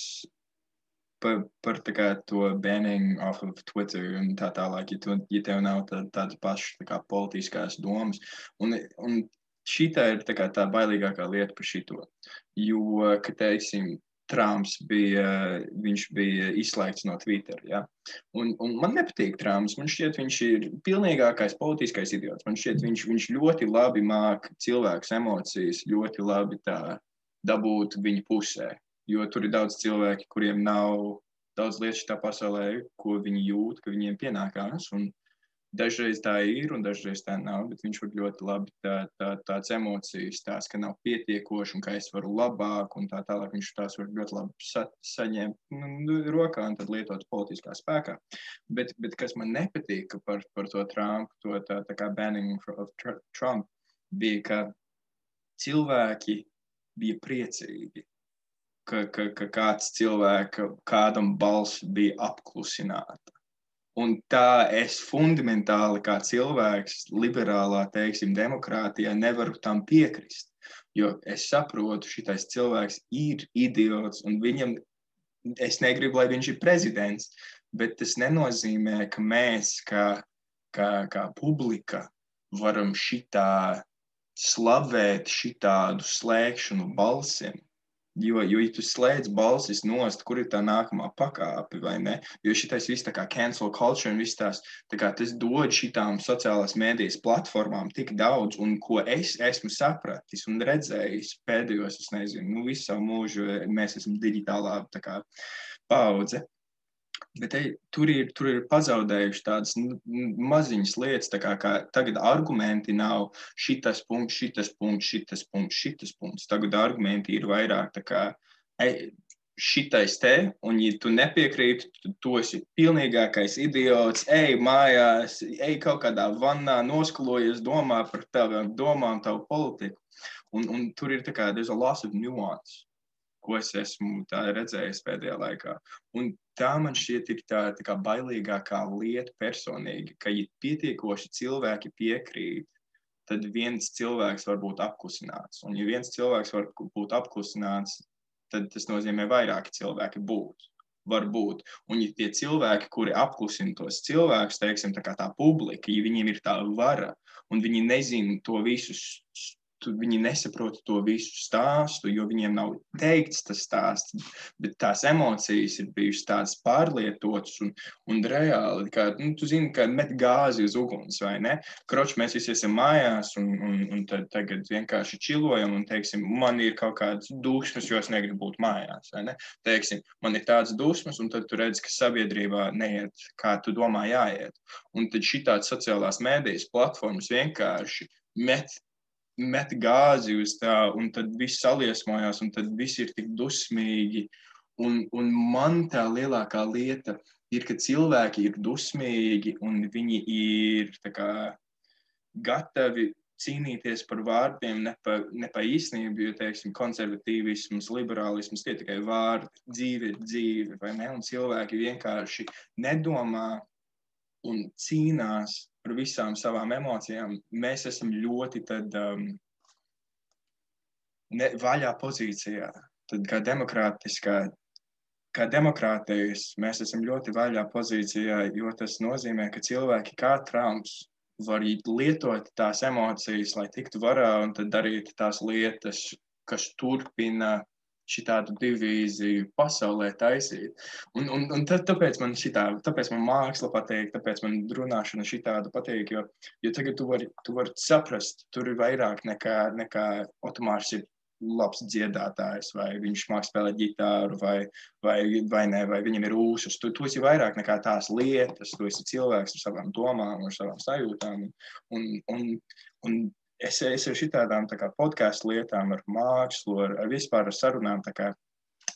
par tā kā to banning off of Twitter un tā tālāk, ja tev nav tādas pašas tā kā politiskās domas. Un šitā ir tā kā tā bailīgākā lieta par šito. Jo, ka teiksim, Trumps viņš bija izslēgts no Twitter, ja? Un man nepatīk Trumps, man šķiet, viņš ir pilnīgākais politiskais idiots, man šķiet, viņš ļoti labi māk cilvēks emocijas, ļoti labi tā dabūt viņa pusē, jo tur ir daudz cilvēki, kuriem nav daudz lietas šitā pasaulē, ko viņi jūt, ka viņiem pienākās, un dažreiz tā ir, un dažreiz tā nav, bet viņš var ļoti labi tāds emocijas, tās, ka nav pietiekoši, un ka es varu labāk, un tā tālāk viņš tās var ļoti labi saņemt rokā, un tad lietot politiskā spēkā. Bet kas man nepatīk par to Trumpu, tā kā banning of Trump, bija, ka cilvēki bija priecīgi ka kāds kādam balss bija apklusināta. Un tā es fundamentāli kā cilvēks liberālā, teiksim, demokrātijā nevaru tam piekrist. Jo es saprotu, šitais cilvēks ir idiots un viņam, es negribu, lai viņš ir prezidents, bet tas nenozīmē, ka mēs kā publika varam šitā slavēt šitādu slēgšanu balsiem. Jo ja tu slēdz balsis nost, kur ir tā nākamā pakāpe, vai ne? Jo šitais viss tā kā cancel culture un viss tās, tā kā tas dod šitām sociālās mēdijas platformām tik daudz, un ko es esmu sapratis un redzējis pēdējos, es nezinu, visu savu mūžu, mēs esam digitālā tā kā paudze. Bet tur ir pazaudējuši tādas maziņas lietas, tā kā tagad argumenti nav šitas punkts. Tagad argumenti ir vairāk tā kā šitais te, un ja tu nepiekrīti, tu esi pilnīgākais idiots, ej mājās, ej kaut kādā vannā, noskalojies, domā par tavām domām, tavu politiku. Un tur ir tā kā, there's a loss of nuance, ko es esmu tā redzējis pēdējā laikā. Un tā man šķiet ir tā kā bailīgākā lieta personīgi, ka ja pietiekoši cilvēki piekrīt, tad viens cilvēks var būt apklusināts. Un ja viens cilvēks var būt apklusināts, tad tas nozīmē vairāki cilvēki var būt. Un ja tie cilvēki, kuri apklusina tos cilvēkus, teiksim, tā kā tā publika, ja viņiem ir tā vara, un viņi nezina to visu, viņi nesaprot to visu stāstu, jo viņiem nav teikts tas stāsts, bet tās emocijas ir bijušas tādas pārlietotas un reāli, kā, tu zini, ka met gāzi uz uguns, vai ne? Kroč, mēs visi esam mājās un tad tagad vienkārši čilojam un, teiksim, man ir kaut kādas dusmas, jo es negribu būt mājās, vai ne? Teiksim, man ir tādas dusmas, un tad tu redzi, ka sabiedrībā neiet, kā tu domā jāiet. Un tad šitāds sociālās mēdijas platformas vienkārši met gāzi uz tā, un tad viss saliesmojās, un tad viss ir tik dusmīgi. Un man tā lielākā lieta ir, ka cilvēki ir dusmīgi, un viņi ir tā kā gatavi cīnīties par vārdiem, ne pa īstenību, jo, teiksim, konservatīvisms, liberālisms, tie tikai vārdi, dzīve ir dzīve, vai ne? Un cilvēki vienkārši nedomā un cīnās par visām savām emocijām. Mēs esam ļoti tad vaļā pozīcijā. Tad kā demokrātijas mēs esam ļoti vaļā pozīcijā, jo tas nozīmē, ka cilvēki kā Trumps var lietot tās emocijas, lai tiktu varā un tad darīt tās lietas, kas turpina šitādu divīziju pasaulē taisīt. Un tāpēc man māksla patīk, tāpēc man runāšana šitādu patīk, jo tagad tu vari saprast, tur ir vairāk nekā Otomārs ir labs dziedātājs, vai viņš māk spēlēt ģitāru, vai ne, vai viņam ir ūsas. Tu esi vairāk nekā tās lietas, tu esi cilvēks ar savām domām, ar savām sajūtām. Un es ar šitādām tā kā podcastu lietām, ar mākslu, ar vispār ar sarunām, tā kā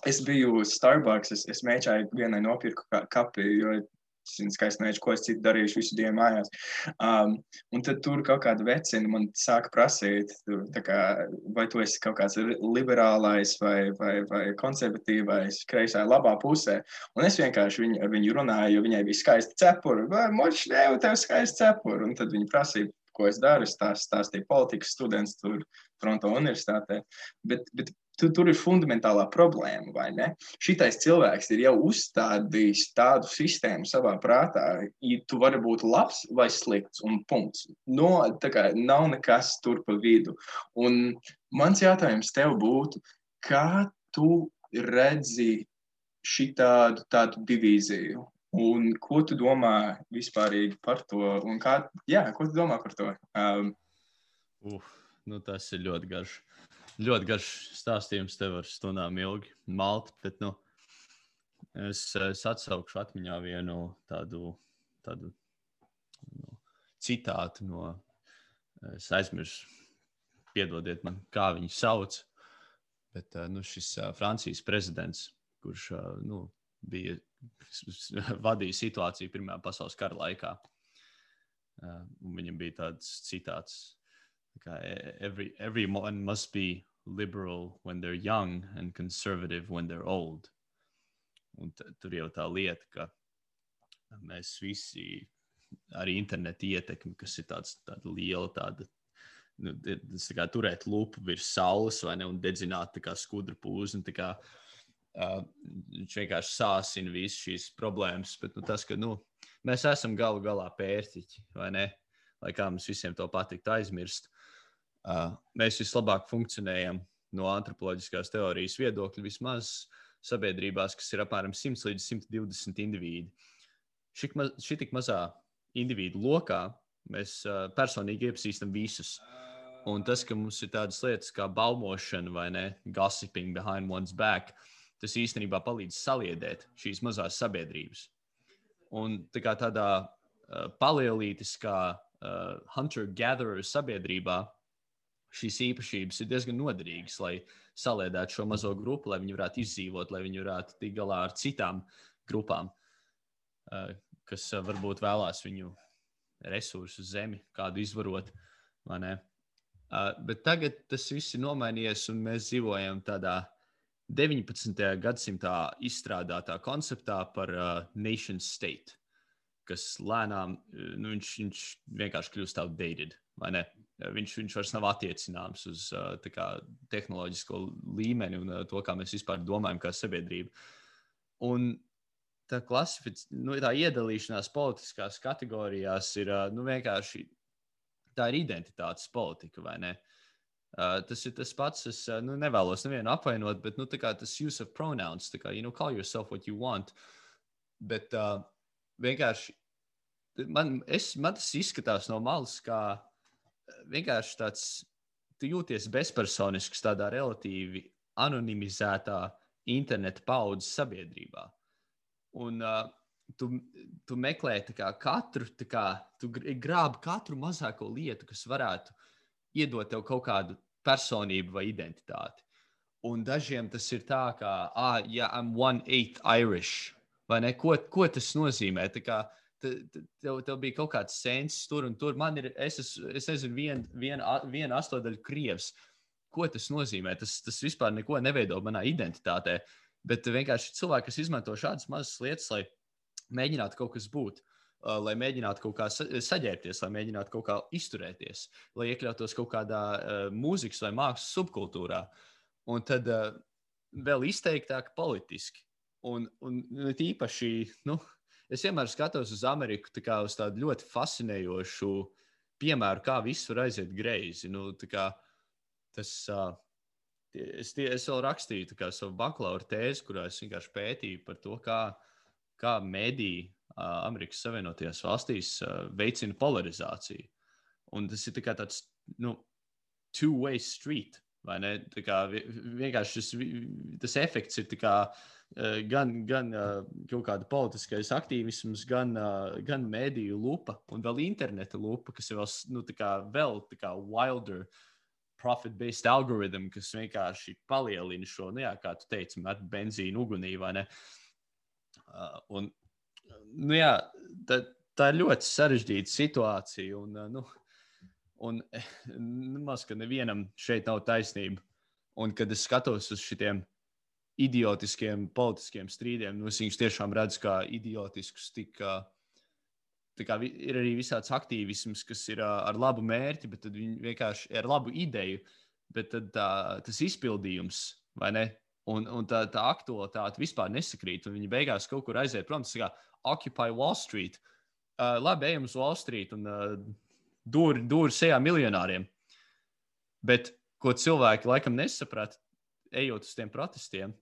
es biju Starbucks, es mēģināju vienai nopirku kapi, jo es skaisti nezinu, ko es citu darīšu visu dienu mājās. Un tad tur kaut kāda vecina man sāka prasīt, tā kā, vai tu esi kaut kāds liberālais vai konservatīvais, kreisā labā pusē. Un es vienkārši ar viņu runāju, jo viņai bija skaisti cepuri. Vai moči, tev skaisti cepuri. Un tad viņi prasīja, ko es daru, es stāstīju politikas students tur Toronto universitātē. Bet tur ir fundamentālā problēma, vai ne? Šitais cilvēks ir jau uzstādījis tādu sistēmu savā prātā, ja tu vari būt labs vai slikts, un punkts. Tā kā nav nekas tur pa vidu. Un mans jautājums tev būtu, kā tu redzi šitādu divīziju? Un ko tu domā vispārīgi par to? Un ko tu domā par to? Tas ir ļoti garš stāstījums tev ar stundām ilgi malt, bet, es atsaukšu atmiņā vienu tādu citātu no, es aizmirsu, piedodiet man, kā viņu sauc, bet, šis Francijas prezidents, kurš, vadīja situāciju Pirmajā pasaules kara laikā. Un viņam bija tāds citāts, kā everyone must be liberal when they're young and conservative when they're old. Un tur jau tā lieta, ka mēs visi arī interneta ietekmi, kas ir tāda liela, tas tā kā turēt lupu virs saules vai ne, un dedzināt tā kā skudru pūzi, un tā kā viņš vienkārši sāsina visas šīs problēmas, bet tas, ka, mēs esam galu galā pērtiķi, vai ne, lai kā mums visiem to patiktu aizmirst, mēs vislabāk funkcionējam no antropoloģiskās teorijas viedokļa vismaz sabiedrībās, kas ir apmēram 100 līdz 120 indivīdi. Šī tik mazā individu lokā mēs personīgi iepazīstam visus. Un tas, ka mums ir tādas lietas kā baumošana vai ne, gossiping behind one's back, tas īstenībā palīdz saliedēt šīs mazās sabiedrības. Un tā kā tādā palielītiskā hunter-gatherer sabiedrībā šīs īpašības ir diezgan noderīgas, lai saliedētu šo mazo grupu, lai viņi varētu izdzīvot, lai viņi varētu tikt galā ar citām grupām, kas varbūt vēlās viņu resursu zemi, kādu izvarot, vai ne? Bet tagad tas viss ir nomainījies, un mēs dzīvojam tādā 19. gadsimtā izstrādātā konceptā par nation state, kas lēnām, viņš vienkārši kļūst outdated, vai ne? Viņš vairs nav attiecināms uz tā kā tehnoloģisko līmeni un to, kā mēs vispār domājam kā sabiedrība. Un tā tā iedalīšanās politiskās kategorijās ir vienkārši, tā ir identitātes politika, vai ne? Tas ir tas pats, es nevēlos nevienu apvainot, bet tā kā tas use of pronouns, tā kā, call yourself what you want, bet vienkārši, man tas izskatās no malas, kā vienkārši tāds, tu jūties bezpersonisks tādā relatīvi anonimizētā interneta paudzes sabiedrībā. Un tu meklē tu grābi katru mazāko lietu, kas varētu iedot tev kaut kādu personību vai identitāti. Un dažiem tas ir tā, kā, I'm 1/8 Irish, vai ne? Ko tas nozīmē? Tā kā tev bija kaut kāds sensis tur un tur. Man ir, es nezinu, viena astodaļa krievs. Ko tas nozīmē? Tas vispār neko neveido manā identitātē. Bet vienkārši cilvēki, kas izmanto šādas mazas lietas, lai mēģinātu kaut kas būt, lai mēģinātu kaut kā saģērbties, lai mēģinātu kaut kā izturēties, lai iekļautos kaut kādā mūzikas vai mākslas subkultūrā. Un tad vēl izteiktāk politiski. Un īpaši, es vienmēr skatos uz Ameriku tā kā uz tādu ļoti fascinējošu piemēru, kā viss var aiziet greizi. Tā kā tas, es vēl rakstīju tā kā savu bakalaura tēzi, kurā es vienkārši pētīju par to, kā mediji Amerikas Savienotajās valstīs veicina polarizāciju. Un tas ir tā kā tāds, two-way street, vai ne? Tā kā vienkārši tas efekts ir tā kā gan kaut kāda politiskais aktīvisms, gan mediju lupa un vēl interneta lupa, kas ir vēl tā kā wilder profit-based algorithm, kas vienkārši palielina šo, kā tu teici, met benzīnu ugunī, vai ne? Un, tā ir ļoti sarežģīta situācija, un maz, ka nevienam šeit nav taisnība. Un, kad es skatos uz šitiem idiotiskiem politiskiem strīdiem, es viņus tiešām redzu kā idiotiskus, tā kā ir arī visāds aktīvisms, kas ir ar labu mērķi, bet tad viņi vienkārši ar labu ideju, bet tad tas izpildījums, vai ne? Un tā aktualitāte vispār nesakrīt, un viņi beigās kaut kur aiziet prom, tas kā Occupy Wall Street. Labi, ejam uz Wall Street un dūri sejā miljonāriem. Bet, ko cilvēki laikam nesaprata, ejot uz tiem protestiem,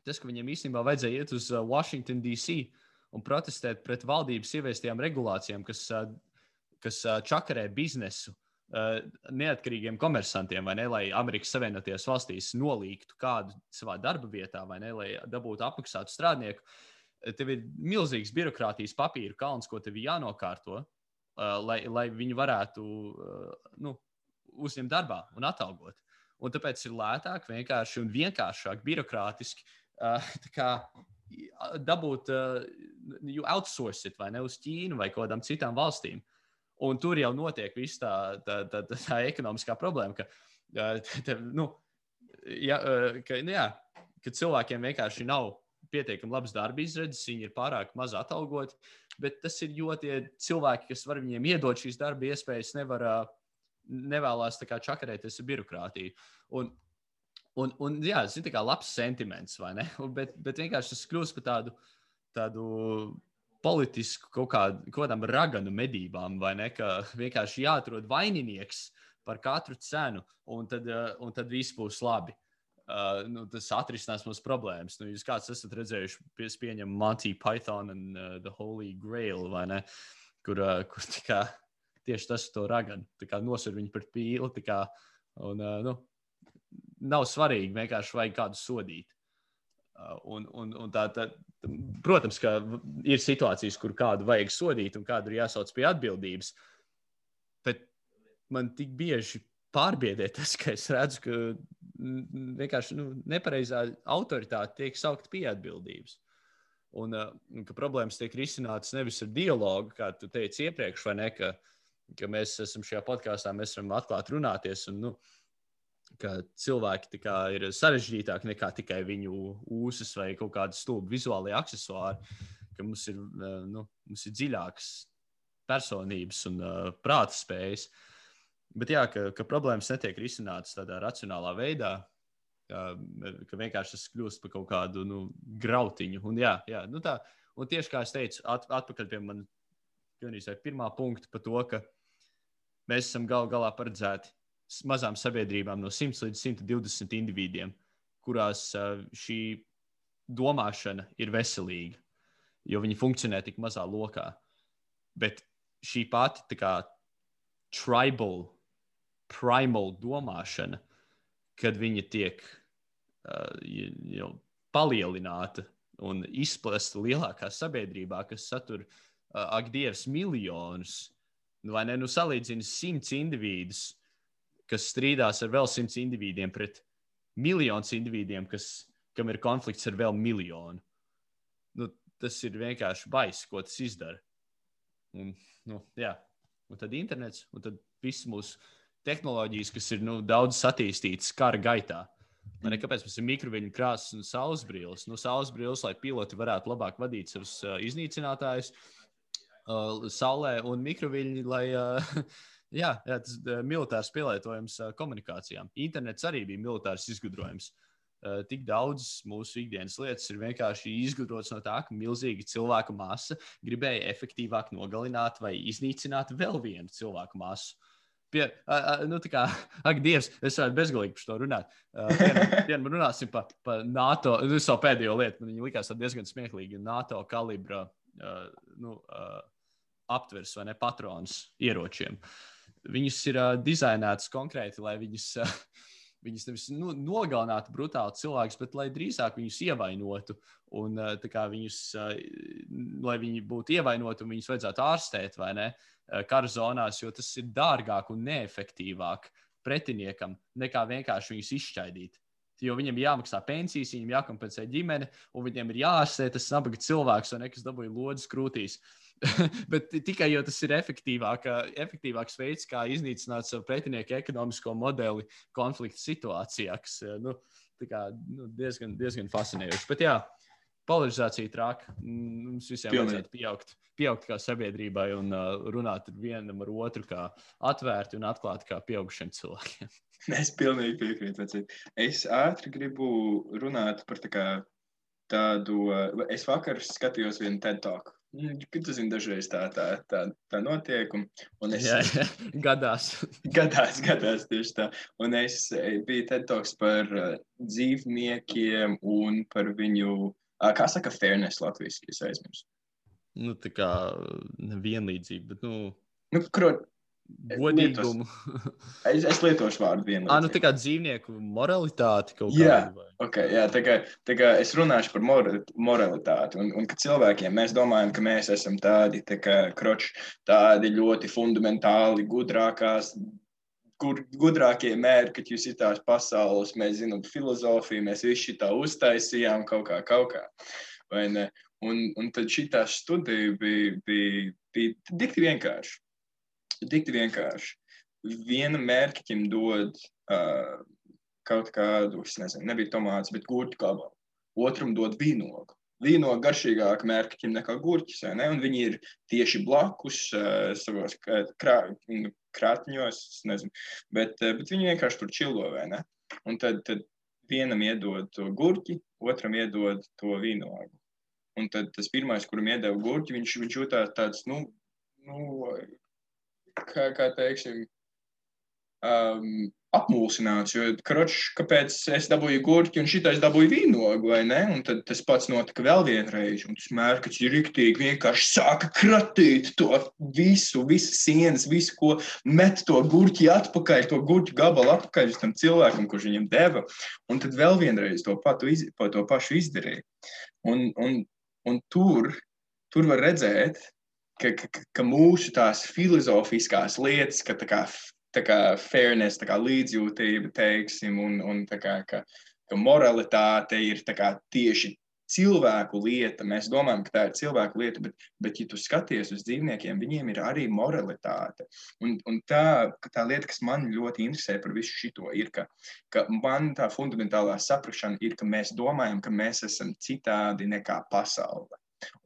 tas, ka viņiem īstenībā vajadzēja iet uz Washington, D.C. un protestēt pret valdības ieviestajām regulācijām, kas čakarē biznesu neatkarīgiem komersantiem, vai ne, lai Amerikas Savienotajās valstīs nolīgtu kādu savā darba vietā, vai ne, lai dabūtu apmaksātu strādnieku. Tev ir milzīgs birokrātijas papīru kalns, ko tev jānokārto, lai viņi varētu uzņemt darbā un atalgot. Un tāpēc ir lētāk, vienkārši un vienkāršāk birokrātiski dabūt, you outsource it, vai ne, uz Ķīnu vai kādām citām valstīm. Un tur jau notiek viss tā ekonomiskā problēma, ka ka cilvēkiem vienkārši nav pietiekami labs darba izredzes, viņi ir pārāk maz atalgoti, bet tas ir, jo tie cilvēki, kas var viņiem iedot šīs darba iespējas, nevēlās tā kā čakarēties ar birokrātiju. Un jā, tas ir tā kā labs sentiments, vai ne? Bet vienkārši tas kļūst par tādu politisku kaut kādām raganu medībām, vai ne? Ka vienkārši jāatrod vaininieks par katru cenu, un tad viss būs labi. Tas atrisinās mūsu problēmas. Jūs kāds esat redzējuši, pieņem Monty Python and the Holy Grail, vai ne? Kur tieši tas to raganu. Nosver viņu par pīli, nav svarīgi, vienkārši vajag kādu sodīt. Protams, ka ir situācijas, kur kādu vajag sodīt un kādu ir jāsauc pie atbildības, bet man tik bieži pārbiedē tas, ka es redzu, ka vienkārši nepareizā autoritāte tiek saukt pie atbildības. Un ka problēmas tiek risinātas nevis ar dialogu, kā tu teici iepriekš, vai ne, ka mēs esam šajā podkāstā, mēs varam atklāt runāties, un ka cilvēki ir sarežģītāki nekā tikai viņu ūsas vai kaut kādi stulbi vizuālie aksesuāri, ka mums ir dziļākas personības un prāta spējas. Bet jā, ka problēmas netiek risinātas tādā racionālā veidā, ka vienkārši tas kļūst par kaut kādu grautiņu. Un un tieši kā es teicu, atpakaļ pie man pirmā punkta par to, ka mēs esam galā paredzēti mazām sabiedrībām no 100 līdz 120 individiem, kurās šī domāšana ir veselīga, jo viņi funkcionē tik mazā lokā. Bet šī pati primal domāšana, kad viņa tiek palielināta un izplesta lielākā sabiedrībā, kas satur, ak Dievs, miljonus, vai ne, salīdzina 100 individus, kas strīdās ar vēl 100 individiem pret miljonus individiem, kam ir konflikts ar vēl miljonu. Tas ir vienkārši baiss, ko tas izdara. Un tad internets, un tad viss mūsu tehnoloģijas, kas ir daudz attīstītas kara gaitā. Kāpēc mums ir mikroviļņu krāsas un saulesbrilles? Saulesbrilles, lai piloti varētu labāk vadīt savus iznīcinātājus saulē, un mikroviļņi, lai tas militārs pielietojums komunikācijām. Internets arī bija militārs izgudrojums. Tik daudz mūsu ikdienas lietas ir vienkārši izgudrotas no tā, ka milzīga cilvēku masa gribēja efektīvāk nogalināt vai iznīcināt vēl vienu cilvēku masu. Ak, Dievs, es varētu bezgalīgi par to runāt. Vien runāsim par NATO, savu pēdējo lietu, man viņa likās diezgan smieklīgi, NATO kalibra aptvers vai ne patrons ieročiem. Viņus ir dizainētas konkrēti, lai viņus nevis nogalinātu brutāli cilvēkus, bet lai drīzāk viņus ievainotu un viņus, lai viņi būtu ievainoti un viņus vajadzētu ārstēt, vai ne, kara zonās, jo tas ir dārgāk un neefektīvāk pretiniekam nekā vienkārši viņus izšķaidīt. Jo viņiem ir jāmaksā pensijas, viņiem jākompensē ģimene, un viņiem ir jāārstē tas nabaga cilvēks, vai ne, kas dabūja lodzes krūtīs. Bet tikai jo tas ir efektīvāks veids, kā iznīcināt savu pretinieku ekonomisko modeli konflikta situācijā, kas diezgan fascinējoši. Bet jā, polarizācija traka. Mums visiem vajadzētu pieaugt kā sabiedrībai un runāt vienam ar otru kā atvērti un atklāti kā pieaugušiem cilvēkiem. Es pilnīgi piekrītu. Es ātri gribu runāt par tādu. Es vakar skatījos vienu TED Talk. Tu zini, dažreiz tā notiek. Un es, Gadās tieši tā. Un es biju TED Talks par dzīvniekiem un par viņu, kā saka fairness latviski, es aizmirsu. Tā kā vienlīdzība, bet godīgumu. Es lietošu vārdu vienlīdzību. Tā kā dzīvnieku moralitāti kaut kādu. Jā, tā kā es runāšu par moralitāti. Un ka cilvēkiem mēs domājam, ka mēs esam tādi tādi ļoti fundamentāli gudrākie mēri, kad jūs ir tās pasaules, mēs zinām filozofiju, mēs visi šitā uztaisījām kaut kā. Vai ne? Un tad šitā studija bija dikti vienkārši. Dikti vienkārši. Viena mērķim dod kaut kādu, es nezinu, nebija tomāts, bet gurķu gabalu. Otram dod vīnogu. Vīnogu garšīgāk mērķim nekā gurķis, vai ne? Un viņi ir tieši blakus savos krātņos, nezinu, bet viņi vienkārši tur čilo, vai ne? Un tad vienam iedod to gurķi, otram iedod to vīnogu. Un tad tas pirmais, kuram iedeva gurķi, viņš jūtās tāds, kā teiksim, apmulsināts, jo, kāpēc es dabūju gurķi un šitais dabūju vīnogu, vai ne? Un tad tas pats notika vēl vienreiz, un tas mērķis ir riktīgi vienkārši sāka kratīt to visas sienas, visu, ko met to gurķi atpakaļ, to gurķu gabalu atpakaļ uz tam cilvēkam, kurš viņam deva, un tad vēl vienreiz to pašu izdarīja. Un tur var redzēt, ka mūsu tās filozofiskās lietas, ka tā kā fairness, tā kā līdzjūtība, teiksim, un tā kā, ka moralitāte ir tā kā tieši cilvēku lieta. Mēs domājam, ka tā ir cilvēku lieta, bet ja tu skaties uz dzīvniekiem, viņiem ir arī moralitāte. Un tā lieta, kas man ļoti interesē par visu šito, ir, ka man tā fundamentālā saprašana ir, ka mēs domājam, ka mēs esam citādi nekā pasaule.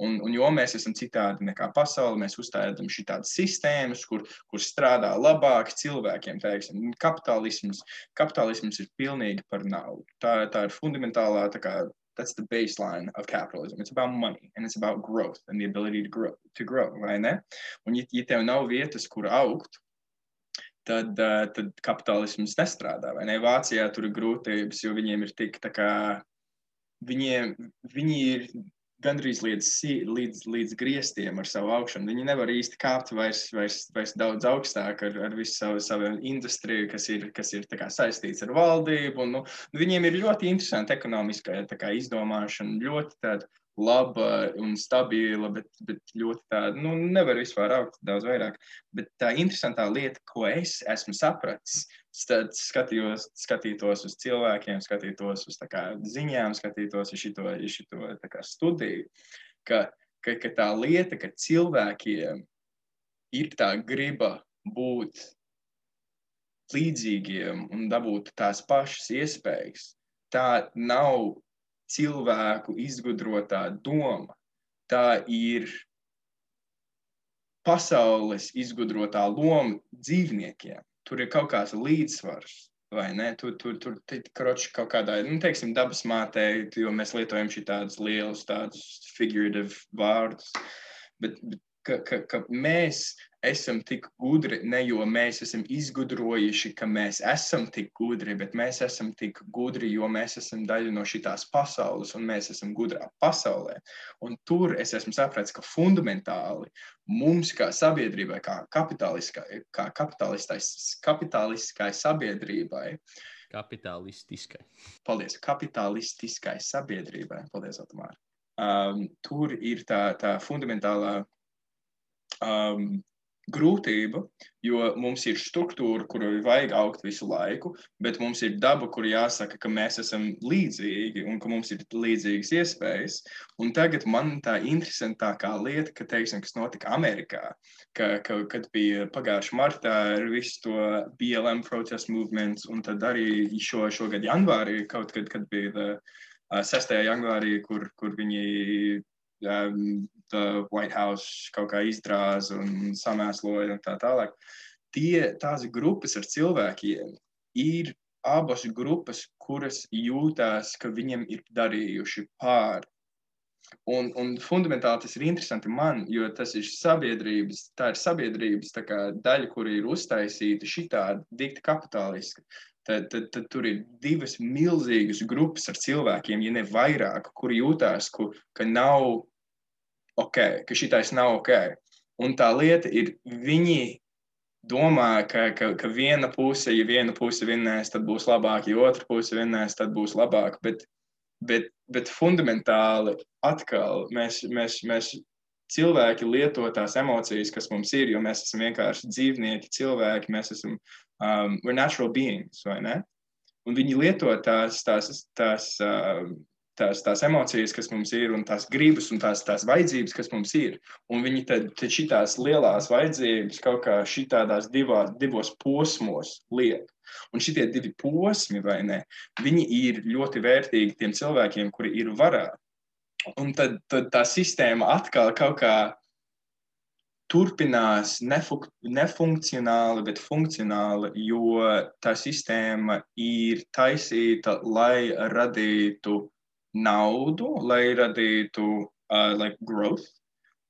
Un jo mēs esam citādi nekā pasaule, mēs uzstādām šitādas sistēmas, kur strādā labāk cilvēkiem, teiksim. Kapitālisms ir pilnīgi par naudu. Tā ir fundamentālā, that's the baseline of capitalism. It's about money, and it's about growth, and the ability to grow, vai ne? Un ja tev nav vietas, kur augt, tad kapitālisms nestrādā, vai ne? Vācijā tur ir grūtības, jo viņiem ir tik, viņi ir gandrīz līdz griestiem ar savu augšanu. Viņi nevar īsti kāpt vairs daudz augstāk ar visu savu industriju, kas ir tā kā saistīts ar valdību. Un, viņiem ir ļoti interesanti ekonomiskā izdomāšana, ļoti tāda laba un stabila, bet ļoti tāda, nevar vispār augt daudz vairāk. Bet tā interesantā lieta, ko es esmu sapratis, tad skatītos uz cilvēkiem, skatītos uz ziņām, skatītos uz šito studiju, ka tā lieta, ka cilvēkiem ir tā griba būt līdzīgiem un dabūt tās pašas iespējas, tā nav cilvēku izgudrotā doma, tā ir pasaules izgudrotā loma dzīvniekiem. Tur ir kaut kāds līdzsvars, vai ne? Tur kaut kādā, teiksim, dabas mātē, jo mēs lietojam šitādus lielus, tādus figurative vārdus, bet ka mēs esam tik gudri, ne jo mēs esam izgudrojuši, ka mēs esam tik gudri, bet mēs esam tik gudri, jo mēs esam daļa no šitās pasaules, un mēs esam gudrā pasaulē. Un tur es esmu sapratis, ka fundamentāli mums kā sabiedrībai, kā kapitalistiskai sabiedrībai, kapitalistiskai sabiedrībai, paldies, Otomār, tur ir tā fundamentālā grūtība, jo mums ir struktūra, kuru vajag augt visu laiku, bet mums ir daba, kur jāsaka, ka mēs esam līdzīgi un ka mums ir līdzīgas iespējas. Un tagad man tā interesantākā lieta, teiksim, kas notika Amerikā, kad bija pagājuši martā ar visu to BLM protest movements, un tad arī šogad janvārī, kaut kad bija 6. janvārī, kur viņi the White House kaut kā izdrāza un samēsloja un tā tālāk. Tās grupas ar cilvēkiem ir abas grupas, kuras jūtās, ka viņiem ir darījuši pāri. Un fundamentāli tas ir interesanti man, jo tas ir sabiedrības tā kā daļa, kura ir uztaisīta šitādi dikti kapitaliski. Tad tur ir divas milzīgas grupas ar cilvēkiem, ja ne vairāk, kuri jūtās, ka nav ok, ka šitais nav ok. Un tā lieta ir, viņi domā, ka viena puse, ja viena puse vinnēs, tad būs labāk, ja otra puse vinnēs, tad būs labāk. Bet fundamentāli atkal mēs cilvēki lieto tās emocijas, kas mums ir, jo mēs esam vienkārši dzīvnieki, cilvēki, mēs esam we're natural beings, vai ne? Un viņi lieto tās tās emocijas, kas mums ir, un tās gribas un tās vajadzības, kas mums ir. Un viņi tad šitās lielās vajadzības kaut kā šitādās divos posmos liek. Un šitie divi posmi, vai ne, viņi ir ļoti vērtīgi tiem cilvēkiem, kuri ir varā. Un tad tā sistēma atkal kaut kā turpinās nefunkcionāli, bet funkcionāli, jo tā sistēma ir taisīta, lai radītu naudu, lai radītu growth,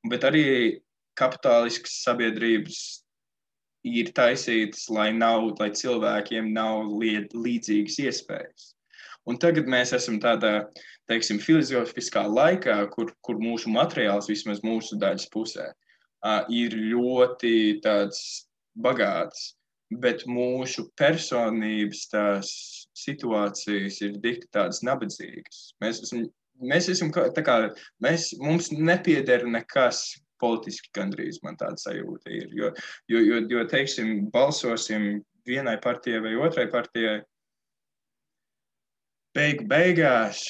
bet arī kapitāliskas sabiedrības ir taisītas, lai cilvēkiem nav līdzīgas iespējas. Un tagad mēs esam tādā, teiksim, filozofiskā laikā, kur mūsu materiāls, vismaz mūsu daļas pusē, ir ļoti tāds bagāts, bet mūsu personības tās situācijas ir dikti tādas nabadzīgas. Mēs esam tā kā, mums nepieder nekas politiski gandrīz, man tāda sajūta ir, jo teiksim, balsosim vienai partijai vai otrai partijai, beigās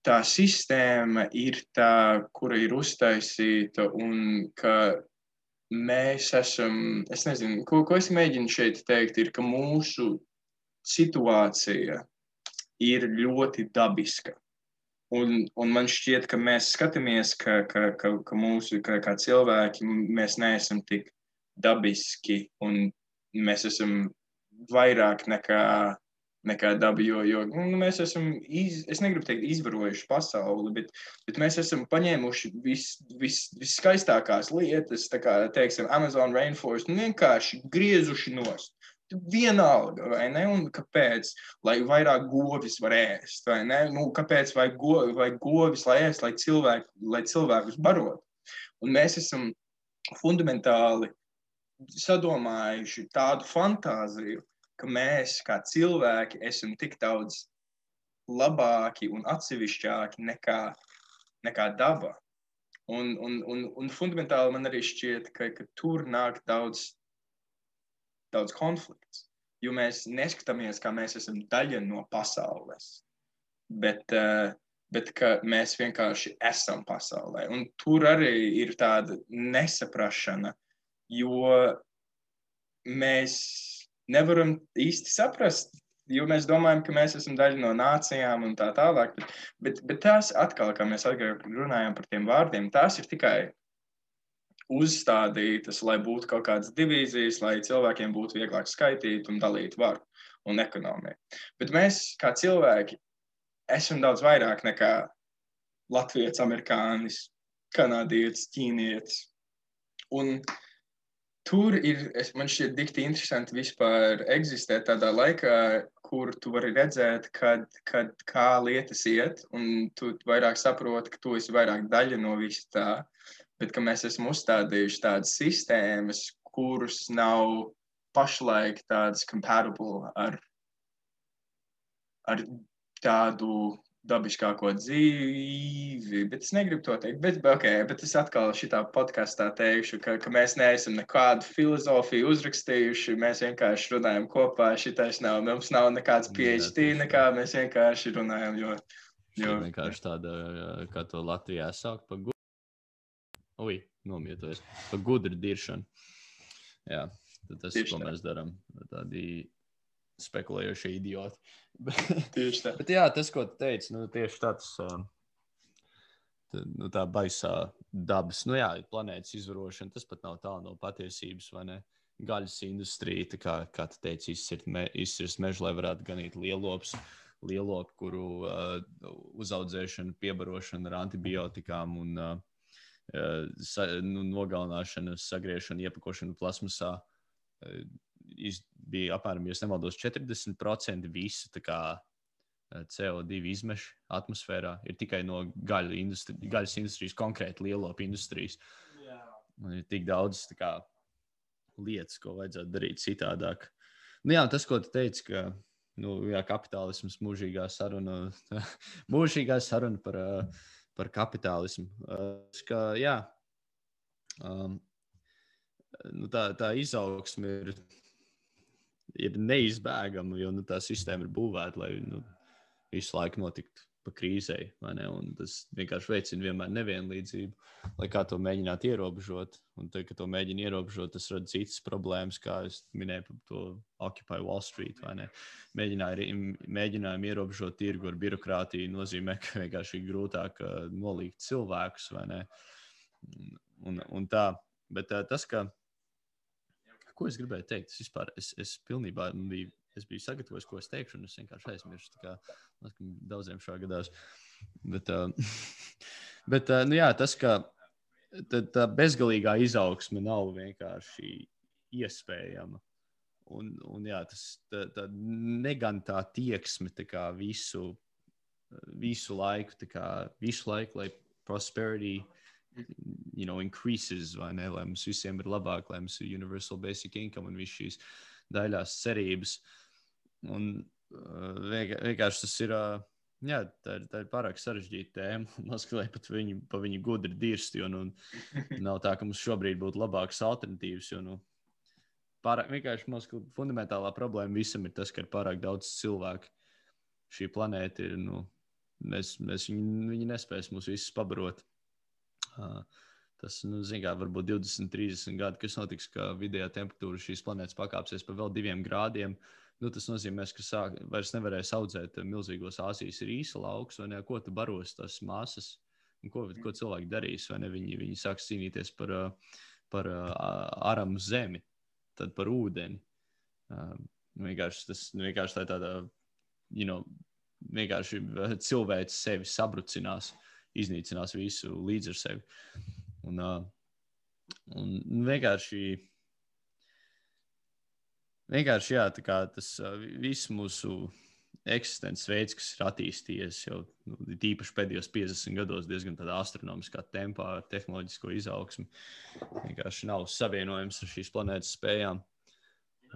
tā sistēma ir tā, kura ir uztaisīta, un ka mēs esam, es nezinu, ko es mēģinu šeit teikt, ir, ka mūsu situācija ir ļoti dabiska. Un man šķiet, ka mēs skatāmies, ka mūsu, kā cilvēki, mēs neesam tik dabiski, un mēs esam vairāk nekā dabi, jo mēs esam, es negribu teikt, izvarojuši pasauli, bet mēs esam paņēmuši viskaistākās lietas, tā kā, teiksim, Amazon Rainforest, un vienkārši griezuši nost. Vienalga, vai ne? Un kāpēc? Lai vairāk govis var ēst, vai ne? Kāpēc vajag govis, lai ēst, lai cilvēkus barot? Un mēs esam fundamentāli sadomājuši tādu fantāziju, ka mēs, kā cilvēki, esam tik daudz labāki un atsevišķāki nekā daba. Un fundamentāli man arī šķiet, ka tur nāk daudz konflikts, jo mēs neskatāmies, kā mēs esam daļa no pasaules, bet ka mēs vienkārši esam pasaulē. Un tur arī ir tāda nesaprašana, jo mēs nevaram īsti saprast, jo mēs domājam, ka mēs esam daļa no nācijām un tā tālāk, bet tās atkal, kā mēs runājam par tiem vārdiem, tās ir tikai uzstādītas, lai būtu kaut kādas divīzijas, lai cilvēkiem būtu vieglāk skaitīt un dalīt varu un ekonomiju. Bet mēs, kā cilvēki, esam daudz vairāk nekā latvietis, amerikānis, kanādietis, ķīnietis. Un tur ir, man šķiet dikti interesanti vispār eksistēt tādā laikā, kur tu vari redzēt, kā lietas iet, un tu vairāk saproti, ka tu esi vairāk daļa no visa tā, bet ka mēs esam uzstādījuši tādas sistēmas, kuras nav pašlaik tādas compatible ar tādu dabiskāko dzīvi, bet es negribu to teikt, bet es atkal šitā podkastā teikšu, ka mēs neesam nekādu filozofiju uzrakstījuši, mēs vienkārši runājam kopā, mums nav nekāds PhD, mēs vienkārši runājam, jo vienkārši tāda, kā to Latvijā saukt, nomietojas, pa gudru diršanu. Jā, tas ir, ko mēs darām, tādi spekulējošie idioti. Tieši tā. Bet jā, tas, ko tu teici, tieši tāds, tā baisā dabas, planētas izvarošana, tas pat nav tālu no patiesības, vai ne? Gaļas industrija, kā tu teici, izcirst mežu, lai varētu ganīt lielopi, kuru uzaudzēšana, piebarošana ar antibiotikām un nogalināšana, sagriešana, iepakošana plasmasā bija apmēram, ja nemaldos, 40% visu CO2 izmešu atmosfērā ir tikai no gaļas industrijas, konkrēti lielopu industrijas. Un ir tik daudz lietas, ko vajadzētu darīt citādāk. Tas, ko tu teici, ka kapitālisms mūžīgā saruna par kapitālismu. Tā izaugsme ir neizbēgama, jo tā sistēma ir būvēta, lai visu laiku notiktu pa krīzei, vai ne? Un tas vienkārši veicina vienmēr nevienlīdzību, lai kā to mēģināt ierobežot. Un tad, kad to mēģina ierobežot, tas rada citas problēmas, kā es minēju par to Occupy Wall Street, vai ne? Mēģinājumi ierobežot tirgu ar birokrātiju nozīmē, ka vienkārši ir grūtāk nolīgt cilvēkus, vai ne? Un tā. Bet tas, ko es gribēju teikt, es pilnībā biju sagatavojis, ko es teikšu, un es vienkārši aizmirstu, tā kā daudziem šā gadās. Bet nu jā, tas, ka tā bezgalīgā izaugsme nav vienkārši iespējama. Un jā, tā negantā tieksme tā kā visu laiku, lai prosperity increases, vai ne, lai mums visiem ir labāk, lai mums ir universal basic income un viss šīs daļās cerības. Un vienkārši tas ir, jā, tā ir pārāk sarežģīta tēma. Noskatīt pat pa viņu gudri dirst, jo nav tā, ka mums šobrīd būtu labākas alternatīvas, jo vienkārši mūsu fundamentālā problēma visam ir tas, ka ir pārāk daudz cilvēku. Šī planēta ir, viņi nespēs mūs visus pabarot. Tas, zin kā, varbūt 20, 30 gadi, kas notiks, ka vidējā temperatūra šīs planētas pakāpsies pa vēl 2 grādiem. Tas nozīmē, ka vairs nevarēs audzēt milzīgos Āzijas rīsa laukus, vai ne, ko tu baros tās masas, un ko cilvēki darīs, vai ne, viņi sāks cīnīties par aramu zemi, tad par ūdeni. Vienkārši tā tāda, vienkārši cilvēks sevi sabrucinās, iznīcinās visu līdz ar sevi. Un vienkārši jā, tā kā tas viss mūsu eksistences veids, kas ir attīstījies jau tīpaši pēdējos 50 gados diezgan tādā astronomiskā tempā ar tehnoloģisko izaugsmi, vienkārši nav savienojams ar šīs planētas spējām.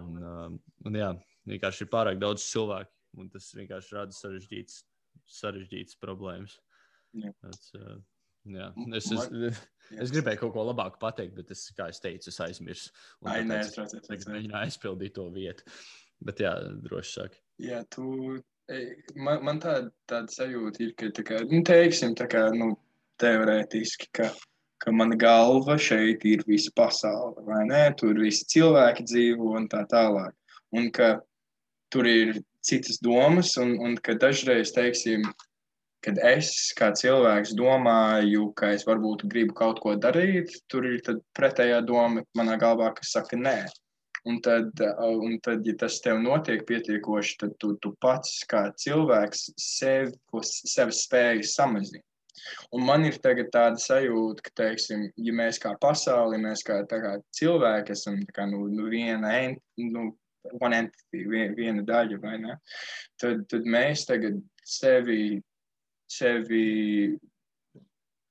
Un jā, vienkārši ir pārāk daudz cilvēku, un tas vienkārši rada sarežģītas problēmas. Jā. Es gribēju kaut ko labāku pateikt, bet kā es teicu, es aizmirsu. Es mēģināju aizpildīt to vietu. Bet jā, droši saki. Jā, man tāda sajūta ir, ka teiksim, teorētiski, ka mana galva šeit ir visa pasaule, vai ne? Tur visi cilvēki dzīvo un tā tālāk. Un ka tur ir citas domas un ka dažreiz, teiksim, kad es kā cilvēks domāju, ka es varbūt gribu kaut ko darīt, tur ir tad pretējā doma manā galvā, kas saka nē. Un tad, ja tas tev notiek pietiekoši, tad tu pats kā cilvēks sevi spējas samazina. Un man ir tagad tāda sajūta, ka, teiksim, ja mēs kā pasauli, mēs kā cilvēki esam one entity, viena daļa, vai ne? Tad mēs tagad sevi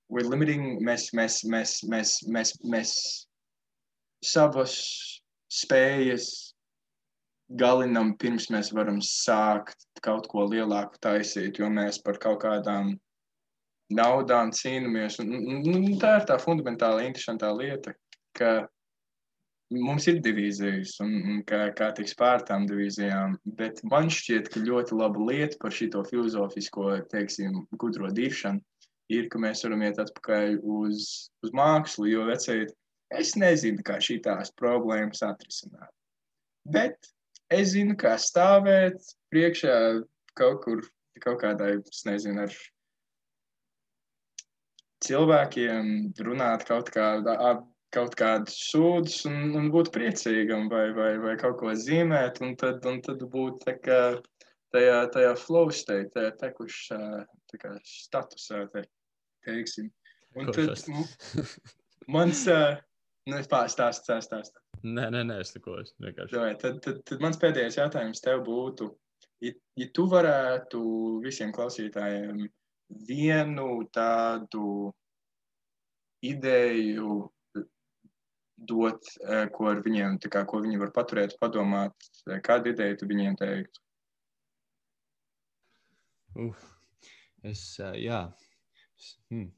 we're limiting, mēs savas spējas galinam, pirms mēs varam sākt kaut ko lielāku taisīt, jo mēs par kaut kādām naudām cīnamies. Tā ir tā fundamentāli interesantā lieta, ka mums ir divīzijas un kā tiks pār tām divīzijām, bet man šķiet, ka ļoti laba lieta par šito filozofisko, teiksim, gudro diršanu ir, ka mēs varam iet atpakaļ uz mākslu, jo vecīt, es nezinu, kā šitās problēmas atrisināt. Bet es zinu, kā stāvēt priekšā kaut kādai, es nezinu, ar cilvēkiem, runāt kaut kādus sūdus un būt priecīgam vai kaut ko zīmēt, un tad būt tā kā tajā flow state, tajā tekušā statusā, teiksim. Un tad mans... Stāst. Nē, es neko vienkārši. Tad mans pēdējais jautājums tev būtu, ja tu varētu visiem klausītājiem vienu tādu ideju dot, ko ar viņiem, ko viņi var paturēt, padomāt, kādu ideju tu viņiem teiktu?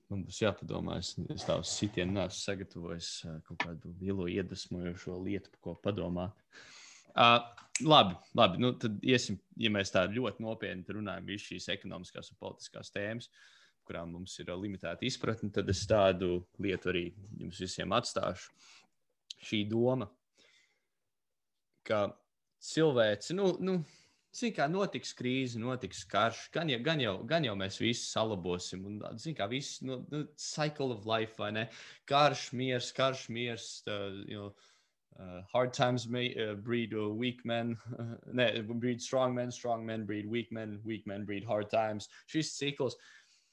Man būs jāpadomā, es tādu sitienu neesmu sagatavojis kaut kādu lielo iedvesmojošo lietu, par ko padomāt. Labi. Nu, tad iesim, ja mēs tā ļoti nopietni runājam visu šīs ekonomiskās un politiskās tēmas, kurām mums ir limitēta izpratne, tad es tādu lietu arī jums visiem atstāšu. Šī doma, ka cilvēci, zin kā, notiks krīze, notiks karš, gan jau mēs visi salabosim, un, zin kā, viss, cycle of life, vai ne? Karš, miers, hard times breed weak men, breed strong men breed weak men breed hard times. Šis cikls.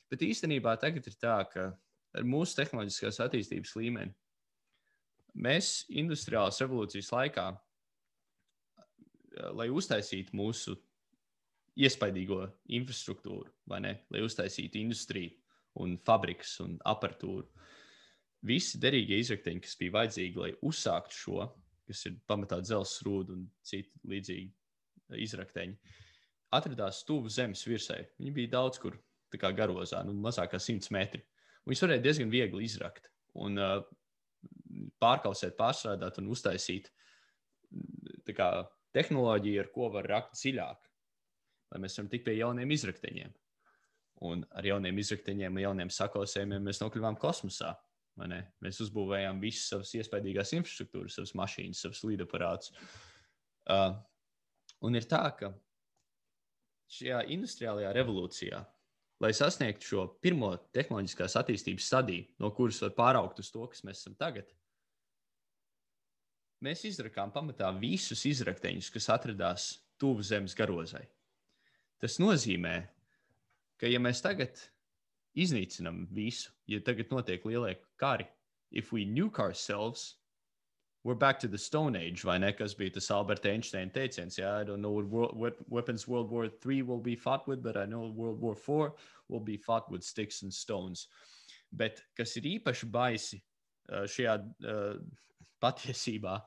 Bet īstenībā tagad ir tā, ka ar mūsu tehnoloģiskās attīstības līmeni mēs industriālās revolūcijas laikā, lai uztaisītu mūsu iespaidīgo infrastruktūru, vai ne, lai uztaisītu industriju un fabrikas un aparatūru, visi derīgie izrakteņi, kas bija vajadzīgi, lai uzsāktu šo, kas ir pamatā dzelzs rūda un citi līdzīgi izrakteņi, atradās tuvu zemes virsai. Viņi bija daudz kur tā kā garozā, mazāk kā 100 metri. Viņus varēja diezgan viegli izrakt un pārkausēt, pārstrādāt un uztaisīt tā kā tehnoloģiju, ar ko var rakt dziļāk, lai mēs varam tikt pie jauniem izrakteņiem. Un ar jauniem izrakteņiem, jauniem sakausējumiem mēs nokļuvām kosmosā. Mēs uzbūvējām visas savas iespaidīgās infrastruktūras, savas mašīnas, savas lidaparātus. Un ir tā, ka šajā industriālajā revolūcijā, lai sasniegtu šo pirmo tehnoloģiskās attīstības stadiju, no kuras var pāraugt uz to, kas mēs esam tagad, mēs izrakām pamatā visus izrakteņus, kas atradās tuvu zemes garozai. Tas nozīmē, ka ja mēs tagad iznīcinam visu, ja tagad notiek lielie kari, if we nuke ourselves, we're back to the Stone Age, vai ne, kas bija tas Alberta Einsteina teiciens, I don't know what weapons World War III will be fought with, but I know World War IV will be fought with sticks and stones. Bet kas ir īpaši baisi šajā patiesībā,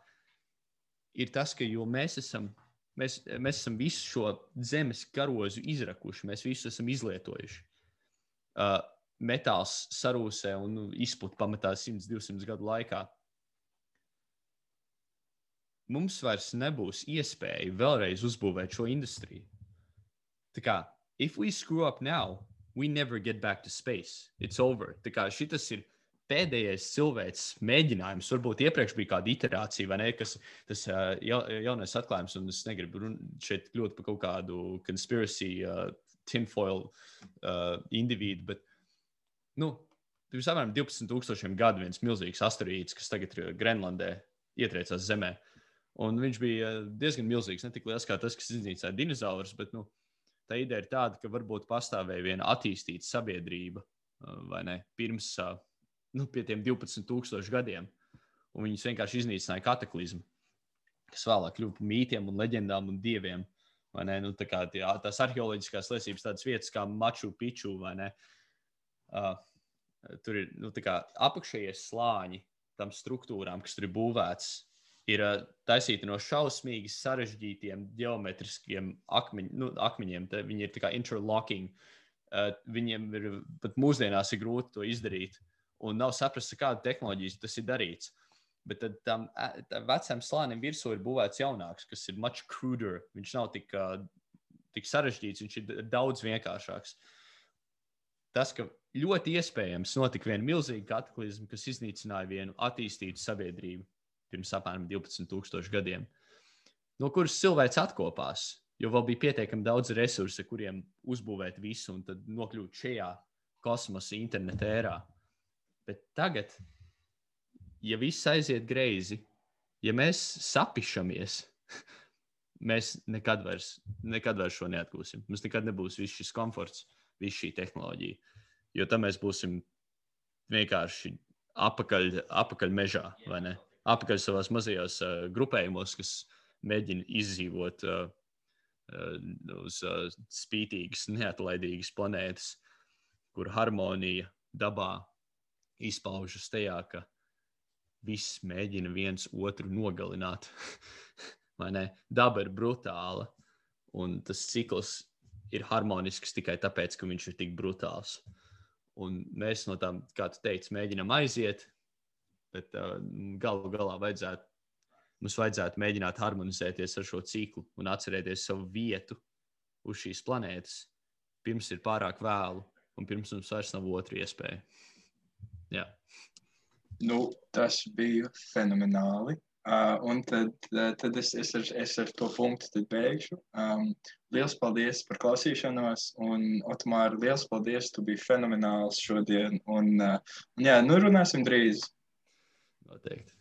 ir tas, ka jo mēs esam visu šo zemes garozu izrakuši, mēs visu esam izlietojuši. Metāls sarūsē un izput pamatā 100-200 gadu laikā. Mums vairs nebūs iespēja vēlreiz uzbūvēt šo industriju. Tā kā, if we screw up now, we never get back to space. It's over. Tā kā šitas ir pēdējais cilvēks mēģinājums. Varbūt iepriekš bija kāda iterācija, vai ne, kas tas jaunais atklājums, un es negribu šeit kļūt par kaut kādu conspiracy tinfoil individu, bet, pirms apmēram 12,000 gadu viens milzīgs asteroīds, kas tagad ir Grenlandē, ietriecās zemē. Un viņš bija diezgan milzīgs, ne tik liels kā tas, kas iznīcināja dinozaurus, bet, tā ideja ir tāda, ka varbūt pastāvēja viena attīstīta sabiedrība, vai ne, pirms, pie tiem 12,000 gadiem. Un viņus vienkārši iznīcināja kataklizmu, kas vēlāk kļuva par mītiem un leģendām un dieviem. Vai ne? Tā kā tās arheoloģiskās liecības tādas vietas kā Machu Picchu, vai ne? Tur ir, tā kā apakšējie slāņi tam struktūrām, kas tur ir būvēts, ir taisīti no šausmīgi sarežģītiem geometriskiem akmeņiem. Viņi ir tā kā interlocking. Viņiem ir pat mūsdienās ir grūti to izdarīt. Un nav saprast, kāda tehnoloģijas tas ir darīts. Bet tad tam vecam slānim virsū ir būvēts jaunāks, kas ir much cruder. Viņš nav tik sarežģīts, viņš ir daudz vienkāršāks. Tas, ka ļoti iespējams notika viena milzīga kataklizma, kas iznīcināja vienu attīstītu sabiedrību pirms apmēram 12,000 gadiem, no kuras cilvēks atkopās, jo vēl bija pietiekami daudz resursu, kuriem uzbūvēt visu un tad nokļūt šajā kosmosa interneta ērā. Bet tagad, ja viss aiziet greizi, ja mēs sapišamies, mēs nekad vairs šo neatgūsim. Mums nekad nebūs viss šis komforts, viss šī tehnoloģija. Jo tam mēs būsim vienkārši apakaļ mežā, vai ne? Apakaļ savās mazajos grupējumos, kas mēģina izdzīvot uz spītīgas, neatlaidīgas planētas, kur harmonija dabā izpaužas tajā, ka viss mēģina viens otru nogalināt. Vai ne? Daba ir brutāla, un tas cikls ir harmonisks tikai tāpēc, ka viņš ir tik brutāls. Un mēs no tām, kā tu teici, mēģinam aiziet, bet galu galā vajadzētu mums vajadzētu mēģināt harmonizēties ar šo ciklu un atcerēties savu vietu uz šīs planētas, pirms ir pārāk vēlu un pirms mums vairs nav otra iespēja. Jā. Nu, tas bija fenomenāli. Un tad es ar to punktu tad beigšu. Liels paldies par klausīšanos, un Otomār, liels paldies, tu biji fenomenāls šodien, un jā, nu runāsim drīz. Noteikti.